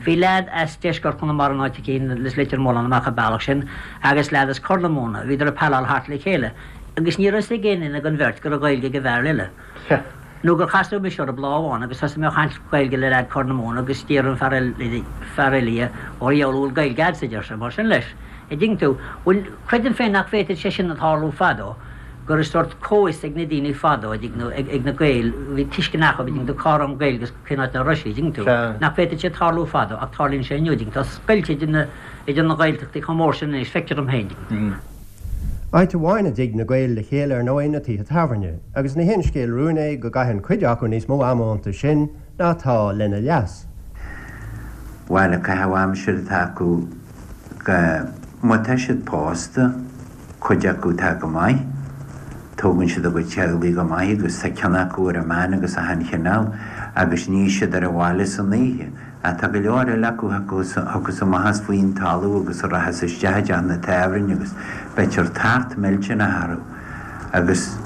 bhí leaid as deisceart Chonamara in áit eicínt, as Leitir Mealláin amach an bealach sin, agus leaid as Corr na Móna, bhíodar ag paileáil thart le chéile, agus ní raibh fhios ag aon duine den bheirt go raibh Gaeilge ag an bhfear eile. Nó gur casadh mise orthu lá amháin agus thosaigh mé a chaint Gaeilge le leaid Corr na Móna agus d'iarr an fear eile, fear eile dhe, ó a dheabhail an bhfuil Gaeilge a'dsa, a deir sé, mar sin leis. A' dtuigeann tú? Bhuel, creidim féin nach bhféadfadh sé sin a tharlú fadó. go raibh sórt comhfhios ag na daoine fadó, a dtuigeann tú, ag na Gaeil, bhí tuiscint acu, a dtuigeann tú, cá raibh an Ghaeilge agus cén áit nach raibh sí, a dtuigeann tú. Nach bhféadfadh sé tarlú fadó, ach tarlaíonn sé inniu, a dtuigeann tú. Tá scoilt idir na, idir na Gaeltachtaí chomh mór sin anois, feictear dom féin, a dtuigeann tú. Áit amháin a dtig na Gaeil le chéile ar ndóigh na tithe tábhairne, agus ní haon scéal rúin é go gcaitheann cuid acu níos mó ama iontu sin ná atá lena leas. Bhuel, an caitheamh aimsire atá acu go, má tá siad pósta, Cuid acu tá go maith. Tógann siad a gcuid teaghlaigh go maith agus tá cion acu ar an mbean agus achan chineál agus ní siad ar an bhaile san oíche. Ach tá go leor eile acu a thiocfas amach as faoin talamh agus a rachas isteach i dteach na tábhairne agus beitear tart millteanach orthu agus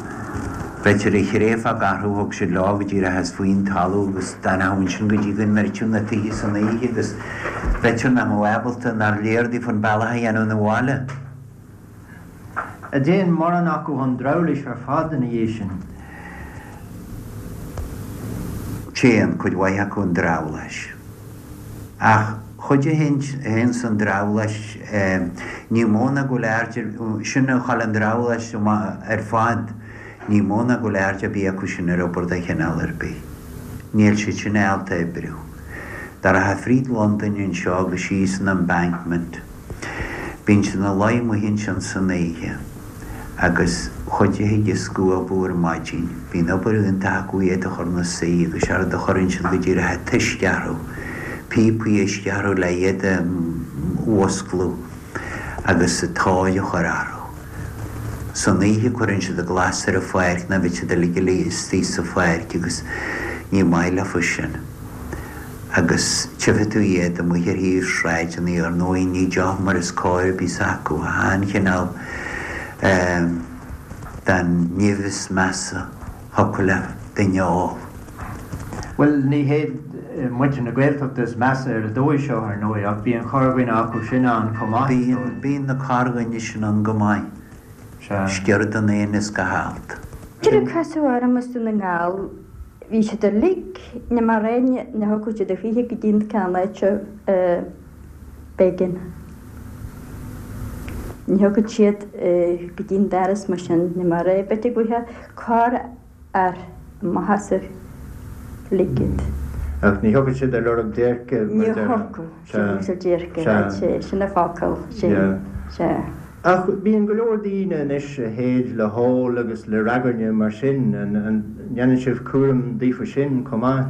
beitear ag thréifeadh orthu thug siad leo go díreach as faoin talamh agus d'fhanfadh ansin go dtí go ndruidfeadh na tithe san oíche agus b'fhéidir nach mbeadh ábalta nár léir daofa an bealach a dhéanamh 'na bhaile. An dtéann mórán acu chun drabhláis ar fad ina dhiaidh sin. Téann cuid mhaith acu chun drabhláis. Ach chuid a théann san drabhlás, ní mó ná go bhfuil aird ar, sin a chaill an drabhlás ar fad, ní mó ná go bhfuil aird ar bith acu sin ar obair de chineál ar bith. Níl siad sin ábalta oibriú. Dá rachfá fríd Londain anseo agus síos an Embankment, Bíonn siad ina luí amuigh ansin san oíche agus chuid acu ag scuabadh ar maidin. Bíonn obair iontach acu iad a chur ina suí agus séard a chuireann siad go díreach an t-uisce orthu, píopaí uisce orthu le iad a mhusclú agus an tóir a chur orthu. San oíche cuireann siad an glas ar an pháirc nó bheadh siad uilig istigh sa pháirc agus ní maith leofa sin. agus tchífidh tú iad amuigh ar thaobh sráideanna, ar ndóigh ní deoch mar is cóir a bhíos acu, achan chineál den nimh is measa thiocfadh le duine a ól. Bhuel, ní hiad muintir na Gaeltachta is measa ar an dóigh seo, ar ndóigh, ach bíonn corrdhuine acu sin ann chomh maith, is dóigh. Bíonn, bíonn na corrdhuine sin ann go maith. Sea. Sciorr den éan is gach alt. Níor casadh orm as Dún na nGall Bhí siad uilig, ní mar aon, ní thiocfadh siad a choíche go dtí an ceann áit seo b'éigean. Ní thiocfadh siad go dtí an doras mar sin, ní mar é, b'fhéidir go bhfuigheadh corrfhear amach as a lig iad. Ach ní thiocfadh siad ar lorg déirce, mar a déarfá. Ní thiocfadh siad ar lorg déirce, sea, sin an focal, sin, sea. Ach bíonn go leor daoine anois a théid le hól agus le ragairne mar sin, an ndéanann sibh cúram daofa sin chomh maith?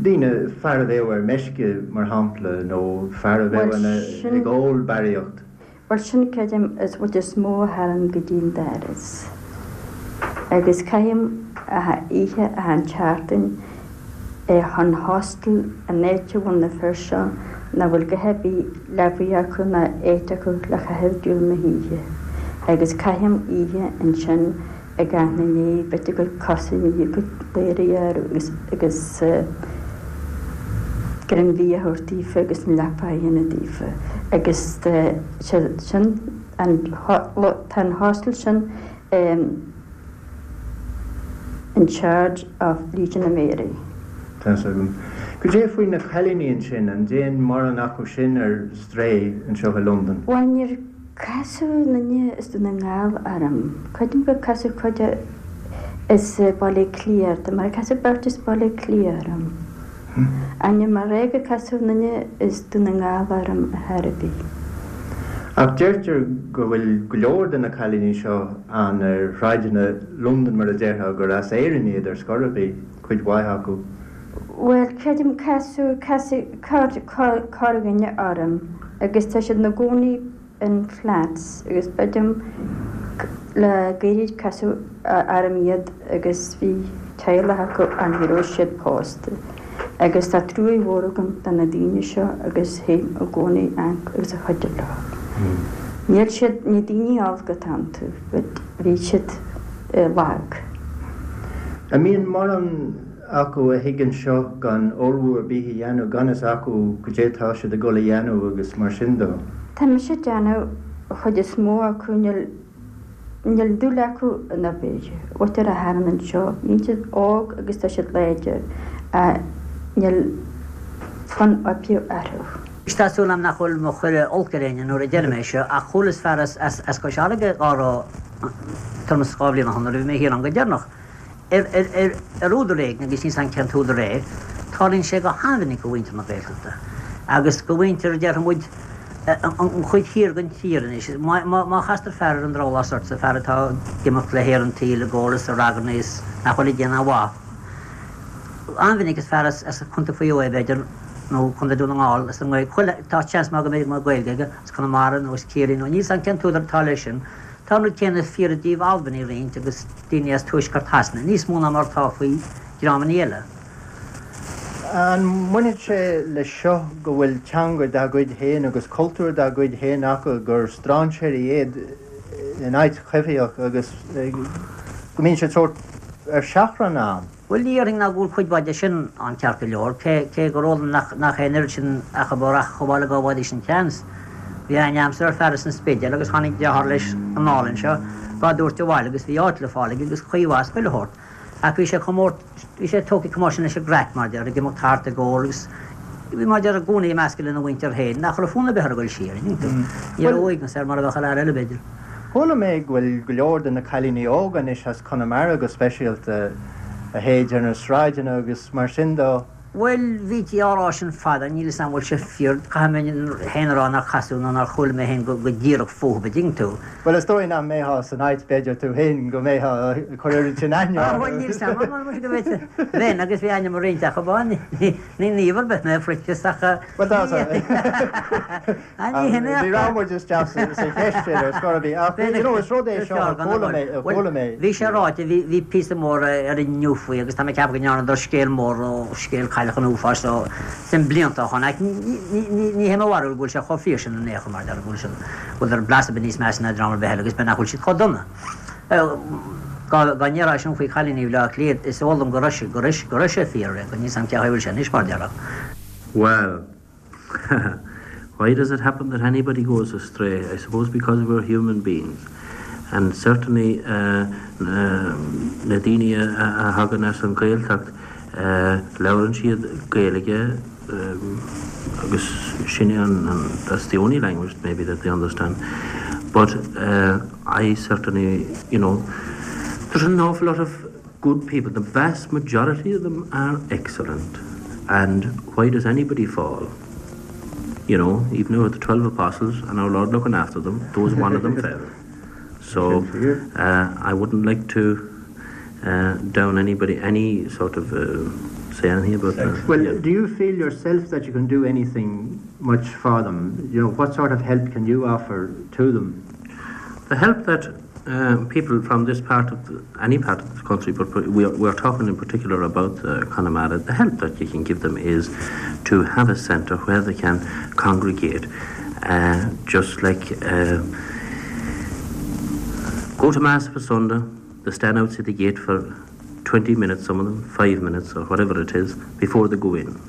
Daoine, fear a bheadh ar meisce, mar shampla, nó fear a bheadh ina, ag ól barraíocht. Bhuel sin creidim is rud is mó a thagann go dtí an doras. Agus caithim achan oíche achan tseachtain chun hostel an áit a bhfuil na fir seo nach bhfuil a dhath ar bith leabaidh acu ná áit acu le chaitheamh diabhal na hoíche agus caithim oíche ansin ag aithne ndiaidh b'fhéidir a gcuid cosa i ndiaidh a gcuid ladhraí orthu agus agus greim bia a thabhairt daofa agus an leapa a dhéanamh daofa agus sin an tá an hostel sin in charge of Legion of Mary. Tá's agam. Cad é faoi na cailíní ansin, an dtéann mórán acu sin ar strae anseo i Londain? Bhuel, níor casadh aon duine as Dún na nGall orm. Creidim gur casadh cuid as Baile Átha Cliath orm, mar casadh beirt as Baile Átha Cliath orm. Ach níl mé ag rá gur casadh aon duine as Dún na nGall orm ar chor ar bith. Ach deirtear go bhfuil go leor de na cailíní seo ann ar shráideanna Londan, mar a déarfá, gur as Éirinn iad ar scor ar bith, cuid mhaith acu. Bhuel, creidim, casadh, casadh corrdhuine orm agus tá siad ina gcónaí in flats agus creidim le gairid casadh orm iad agus bhí teaghlach acu ach ní raibh siad pósta agus tá truaigh mhór agam do na daoine seo agus théim i gcónaí amharc agus ag cuidiú leo. Níl siad, ní daoine olc atá iontu but bhí siad lag. An mbíonn mórán acu a thig anseo gan ullmhú ar bith a dhéanamh, gan fhios acu goidé tá siad ag dul a dhéanamh agus mar sin de. Tá mise ag déanamh, an chuid is mó acu níl, níl dúil acu in obair, mhuintir a thagann anseo, bíonn siad óg agus tá siad láidir ach níl fonn oibre orthu. Tá súil agam nach bhfuil mé ag cur olc ar éinne nuair a deirim é seo ach chualas fear as Cois Fharraige dhá rá tuairim is 2 bhliain ó shin nuair a bhí mé thiar ann go deireanach. Ar údar éigin, agus níl 's a'm cén t-údar é, tarlaíonn sé go han-mhinic do mhuintir na Gaeltachta agus do mhuintir, déarfaidh muid, an chuid thiar den tír anois. Má chastar fear ar an drabhlás ortsa, fear atá ag imeacht le haer an tsaoil ag ól is ag ragairne is nach bhfuil ag déanamh aon mhaith, an-mhinic is fear as Contae Mhaigh Eo é, b'fhéidir, nó Contae Dún na nGall, as an nGaeilge, tá seans maith go mbeidh Gaeilge aige, as Conamara nó as Ciarraí nó níl 's a'm cén t-údar atá leis sin. Tá an rud céanna fíor i dtaobh Albanaigh roinnt agus daoine as tuaisceart Shasana, níos mó ná mar atá faoi dhreamanna eile. An mbainfeadh sé leis seo go bhfuil teanga dá gcuid féin agus cultúr dá gcuid féin acu, gur strainséirí iad in áit choimhthíoch agus go mbíonn siad sórt ar seachrán ann? Bhuel, ní dhéarfainn ná go bhfuil cuid mhaith de sin ann ceart go leor, cé gur eol dom nach é an oiread sin acu a rachadh abhaile dhá bhfaighidís an seans. Bhí aithne a'msa ar fear as an Spidéal agus tháinig deartháir leis anall anseo dhá dtabhairt abhaile agus bhí áit le fáil aige agus caoi mhaith is chuile shórt. Ach bhí sé chomh mór, bhí sé tógtha chomh mór sin leis an gcraic, mar a déarfá, ag imeacht thart ag ól agus bhí mar a déarfá i gcónaí ag meascadh lena mhuintir féin nach raibh fonn ar bith air a dhul siar, an dtuigeann tú. Ní raibh uaigneas air mar a bheadh ar fhear eile, b'fhéidir. Chuala mé go bhfuil go leor de na cailíní óga anois as Conamara go speisialta, a théid ar na sráideanna agus mar sin dó. Bhuel, bhítí á rá sin fada, níl 'fhios a'm an bhfuil sé fíor, caithfidh mé féin a rá nár casadh nó nár chuala mé féin go díreach fúthu, an dtuigeann tú. Bhuel, is dóigh nach mbeifeá san áit, b'fhéidir, tú féin, go mbeifeá ag cur oiread sin aithne orthu. Bhuel, níl 'fhios a'm, mar go bhféadfá, bheinn, agus bhí aithne agam ar roinnt acu, ní naomh ar bith mé, a Phroinsias, ach. Bhuel, tá, Ní raibh muid isteach sa cheist sin ar scor ar bith ach you know is rud é seo a chuala mé, a chuala mé. Bhí sé ráite, bhí, bhí píosa mór ar Inniu faoi agus tá mé ag ceapadh go ndearnadar scéal mór ó scéal cailleach an uafáis so sin blianta ó shoin ach ní, ní, ní, ní hé mo bharúil go bhfuil sé chomh fíor sin in aon chor mar a déarfá go bhfuil siad, go bhfuil blas ar bith níos measa ná dream ar bith eile agus b'fhéidir nach bhfuil siad chomh dona. Dá, dá ndéarfá sin faoi chailíní Bhaile Átha Cliath is eol dom go raibh sé, go raibh, go raibh sé fíor, go níl 's a'm cén chaoi a bhfuil sé anois mar a déarfá. Well. Why does it happen that anybody goes astray? I suppose because we're human beings. And certainly uh, uh, na daoine a thagann as an Ghaeltacht uh, labhrann siad Gaeilge um, agus sin an, an, that's the only language maybe that they understand. But uh, I certainly, you know, there's an awful lot of good people. The vast majority of them are excellent. And why does anybody fall? You know, even though the 12 apostles and our Lord looking after them, those one of them fell. So uh, I wouldn't like to uh, down anybody any sort of uh, say anything about that. Well, yeah. do you feel yourself that you can do anything much for them? You know, what sort of help can you offer to them? The help that uh, people from this part of the, any part of the country, but we are, we are talking in particular about uh, Connemara, the help that you can give them is to have a centre where they can congregate, uh, just like uh, go to Mass for Sunday, they stand outside the gate for 20 minutes, some of them, 5 minutes or whatever it is, before they go in.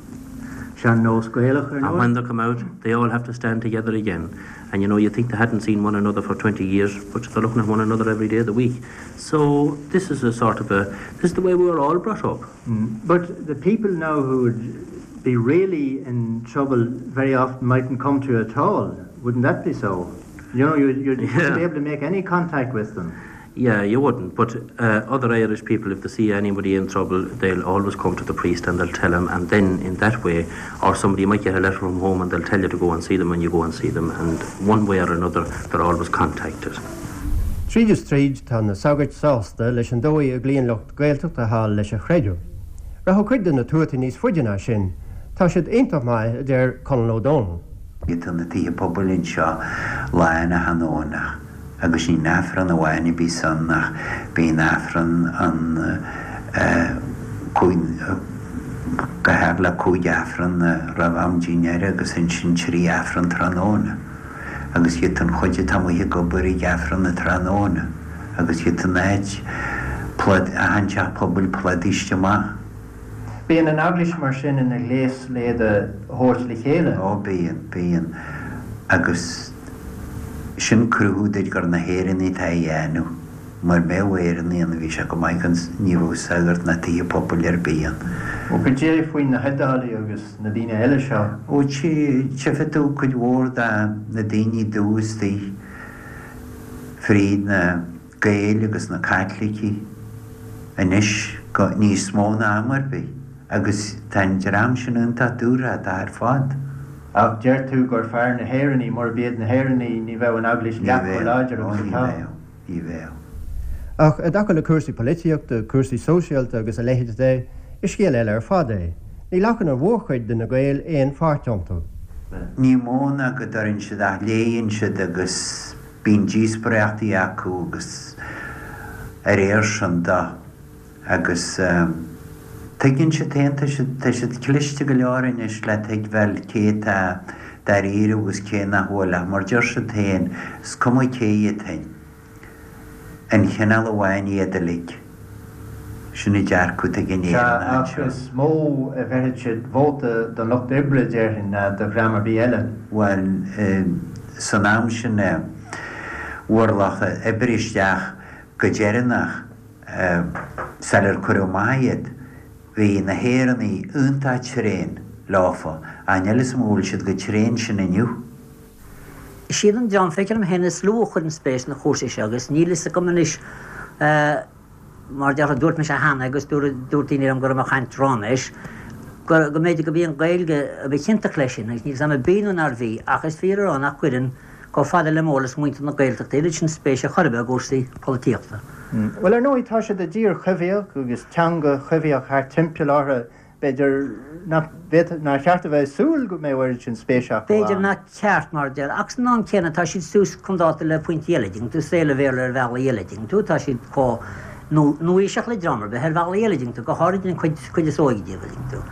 And when they come out, they all have to stand together again. And you know, you think they hadn't seen one another for 20 years, but they're looking at one another every day of the week. So this is a sort of a, this is the way we were all brought up. Mm. But the people now who would be really in trouble very often mightn't come to you at all. Wouldn't that be so? You know, you'd, you'd yeah. be able to make any contact with them. Yeah, you wouldn't, but uh, other Irish people, if they see anybody in trouble, they'll always come to the priest and they'll tell him, and then in that way, or somebody might get a letter from home and they'll tell you to go and see them and you go and see them, and one way or another, they're always contacted. Tríd is tríd tá na sagairt sásta leis an dóigh a gcloíonn lucht Gaeltachta thall leis an chreideamh. Rachadh cuid de na tuataí níos faide ná sin. Tá siad iontach maith, a deir Conall Ó Dónaill. Tá na tithe pobail anseo lán achan Domhnach agus ní Aifreann amháin a bhíos ann ach bíonn Aifreann ann go thart le 5 Aifreann roimh am dinnéir agus ansin 3 Aifreann tráthnóna agus iad an chuid atá amuigh ag obair ag Aifreann na tráthnóna agus iad an áit plod achan teach pobail plódaithe amach. Bíonn an Eaglais mar sin ina ghléas le iad a thabhairt le chéile. Ó bíonn, bíonn. Agus sin cruthú duit gur na hÉireannaigh atá á dhéanamh. Mura mbeadh Éireannaigh ann bhí sé go maith gan, ní bheadh sagart ná tithe pobail ar bith ann. Ó cad é faoi na hIodálaigh agus na daoine eile seo? Ó tchífidh tú cuid mhór de na daoine dubha istigh fríd na. Gaeil agus na Caitlicigh anois go níos mó ná am ar bith agus tá an dream sin iontach dúthrachtach ar fad. Ach deir tú gur fearr na hÉireannaigh, murab iad na hÉireannaigh ní bheadh an Eaglais leath chomh láidir agus atá. Ní bheadh, ní bheadh. Ach i dtaca le cúrsaí polaitíochta, cúrsaí sóisialta agus a leithéid de, is scéal eile ar fad é. Ní ghlacann an mhórchuid de na Gaeil aon pháirt iontu. Ní mó ná go dtuireann siad ach léigheann siad agus Bíonn díospóireachtaí acu agus a réir sin de agus tuigeann siad féin, tá siad, tá siad cliste go leor anois le tuigbheáil cé atá dáiríre agus cé nach bhfuil ach mar deir siad féin, is cuma cé iad féin, aon chineál amháin iad uilig. Sin an dearcadh atá ag an Sea, Éireannach ach anseo. is mó a bheirfeadh siad vóta don Lucht Oibre, déarfainn, ná do dhream ar bith eile. Bhuel, san am sin a bhfuair lucht oibre isteach go deireanach, sular cuireadh amach iad, bhí na hÉireannaigh iontach tréan leofa, ach níl 'fhios a'm an bhfuil siad chomh tréan sin inniu. Is iad an dream, feictear dom féin, is lú a chuireann spéis sna cúrsaí seo agus níl fhios agam anois, mar a déarfá, dúirt mise cheana agus dúirt daoine liom go raibh mé ag caint ráiméis, go mb'fhéidir go b'í an Ghaeilge a ba chiontach leis sin agus níl 'fhios a'm ab í nó nár bhí ach is fíor a rá nach gcuireann chomh fada le m'eolas muintir na Gaeltachta oiread sin spéise chor ar bith i gcúrsaí polaitíochta. Bhuel, ar ndóigh, tá siad i dtír choimhthíoch agus teanga choimhthíoch thart timpeall orthu B'fhéidir nach bhféadfadh, nár cheart a bheith ag súil go mbeadh oiread sin spéise acu B'fhéidir ann. nach ceart, mar a deir, ach san am céanna tá siad suas chun dáta le pointí eile, dtuigeann tú, saol an Bhéarla ar bhealaí eile, dtuigeann tú, tá siad chomh nua-aoiseach le dream ar bith ar bhealaí eile, dtuigeann tú, go háirid an chuid, cuid is óige díobh, dtuigeann tú.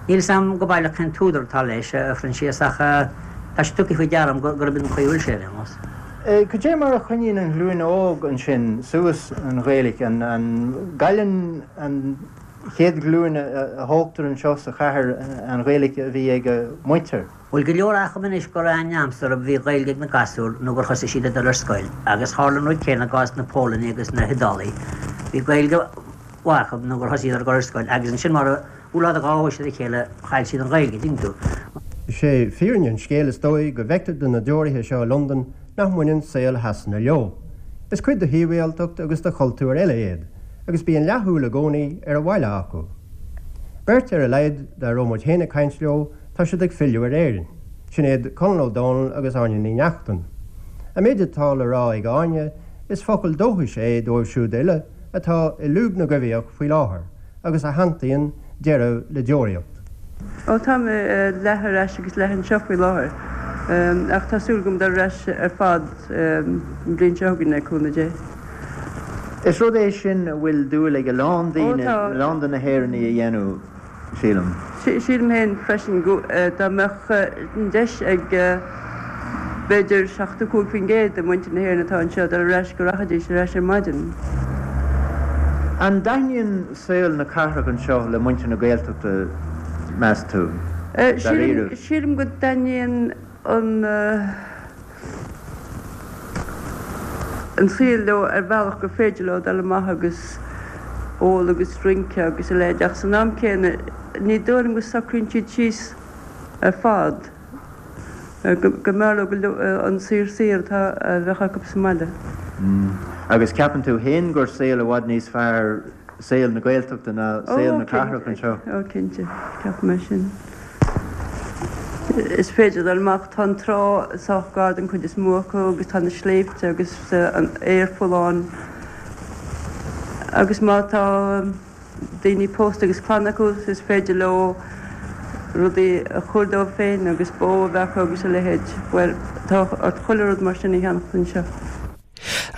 Níl 'fhios a'm go baileach cén t-údar atá leis, a Phroinsias, ach tá sé tugtha faoi deara a'm gurb in an chaoi a bhfuil sé, ar aon nós. Cad é mar a choinníonn an ghlúin óg ansin suas an Ghaeilge? An gcailleann an. chéad ghlúin a thógtar anseo sa chathair an Ghaeilge a bhí ag a muintir. Bhuel go leor acu anois gur aithne agamsa bhí Gaeilge ag na gasúir nó gur thosaigh siad ag dul ar scoil agus tharla an rud céanna i gcás na Polainne agus na hIodálaí. Bhí Gaeilge mhaith acu nó gur thosaigh siad ag dul ar scoil agus ansin mar a bhuail dhá bhois ar a chéile chaill siad an Ghaeilge, tuigeann tú. Is é fírinne an scéil is dóigh go bhfeictear do na deoraithe seo i Londain nach mbaineann saol Shasana leo. Is cuid de shibhialtacht agus de chultúr eile iad. agus bíonn leathshúil i gcónaí ar an bhaile acu. Beirt ar a laghad dá raibh muid féin ag caint leo, tá siad ag filleadh ar Éirinn. Sin iad Conall Ó Dónaill agus Áine Ní Neachtain. An méid atá le rá ag Áine, is focal dóchais é dóibh siúd uile atá i lúb na gcoimhthíoch faoi láthair agus a shantaíonn deireadh le deoraíocht. Ó tá mé leath ar ais agus leath anseo faoi láthair, ach tá súil agam dul ar ais ar fad an bhliain seo chugainn le cúnamh Dé. Is rud é sin a bhfuil dúil ag a lán daoine, a lán de na hÉireannaigh a dhéanamh, sílim. Sílim féin freisin go dá mbeadh an deis ag b'fhéidir 75% de mhuintir na hÉireann atá anseo dul ar ais go rachaidís ar ais ar maidin. An dtaitníonn saol na cathrach anseo le muintir na Gaeltachta, meas tú, dáiríre? Sílim go dtaitníonn an an saol leo ar bhealach gur féidir leo dul amach agus ól agus rince agus a leithéid ach san am céanna ní dóigh liom go socraíonn siad síos ar fad, go mb'fhearr leo an saor saor atá a bheadh acu sa mbaile. Agus ceapann tú fhéin gur saol i bhfad níos fearr saol na Gaeltachta ná saol na cathrach anseo? Ó cinnte, ceapaim é sin. Is féidir dul amach, tá an trá sách gar don chuid is mó acu agus tá na sléibhte agus an aer folláin agus má tá daoine pósta agus clann acu is féidir leo rudaí a chur dóibh féin agus bó a bheith acu agus a leithéid. Bhuel, tá ort chuile rud mar sin a cheannacht anseo.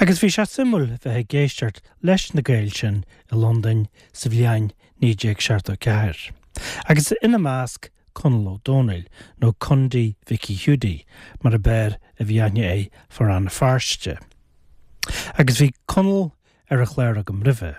Agus bhí sé suimiúil bheith ag éisteacht leis na Gaeil sin i Londain sa bhliain 1974. Agus ina measc Conall Ó Dónaill, nó Condaí Mhicí Hiúdaí mar ab fhearr a bhí aithne air fá Rann na Feirste. Agus bhí Conall ar an chlár agam roimhe.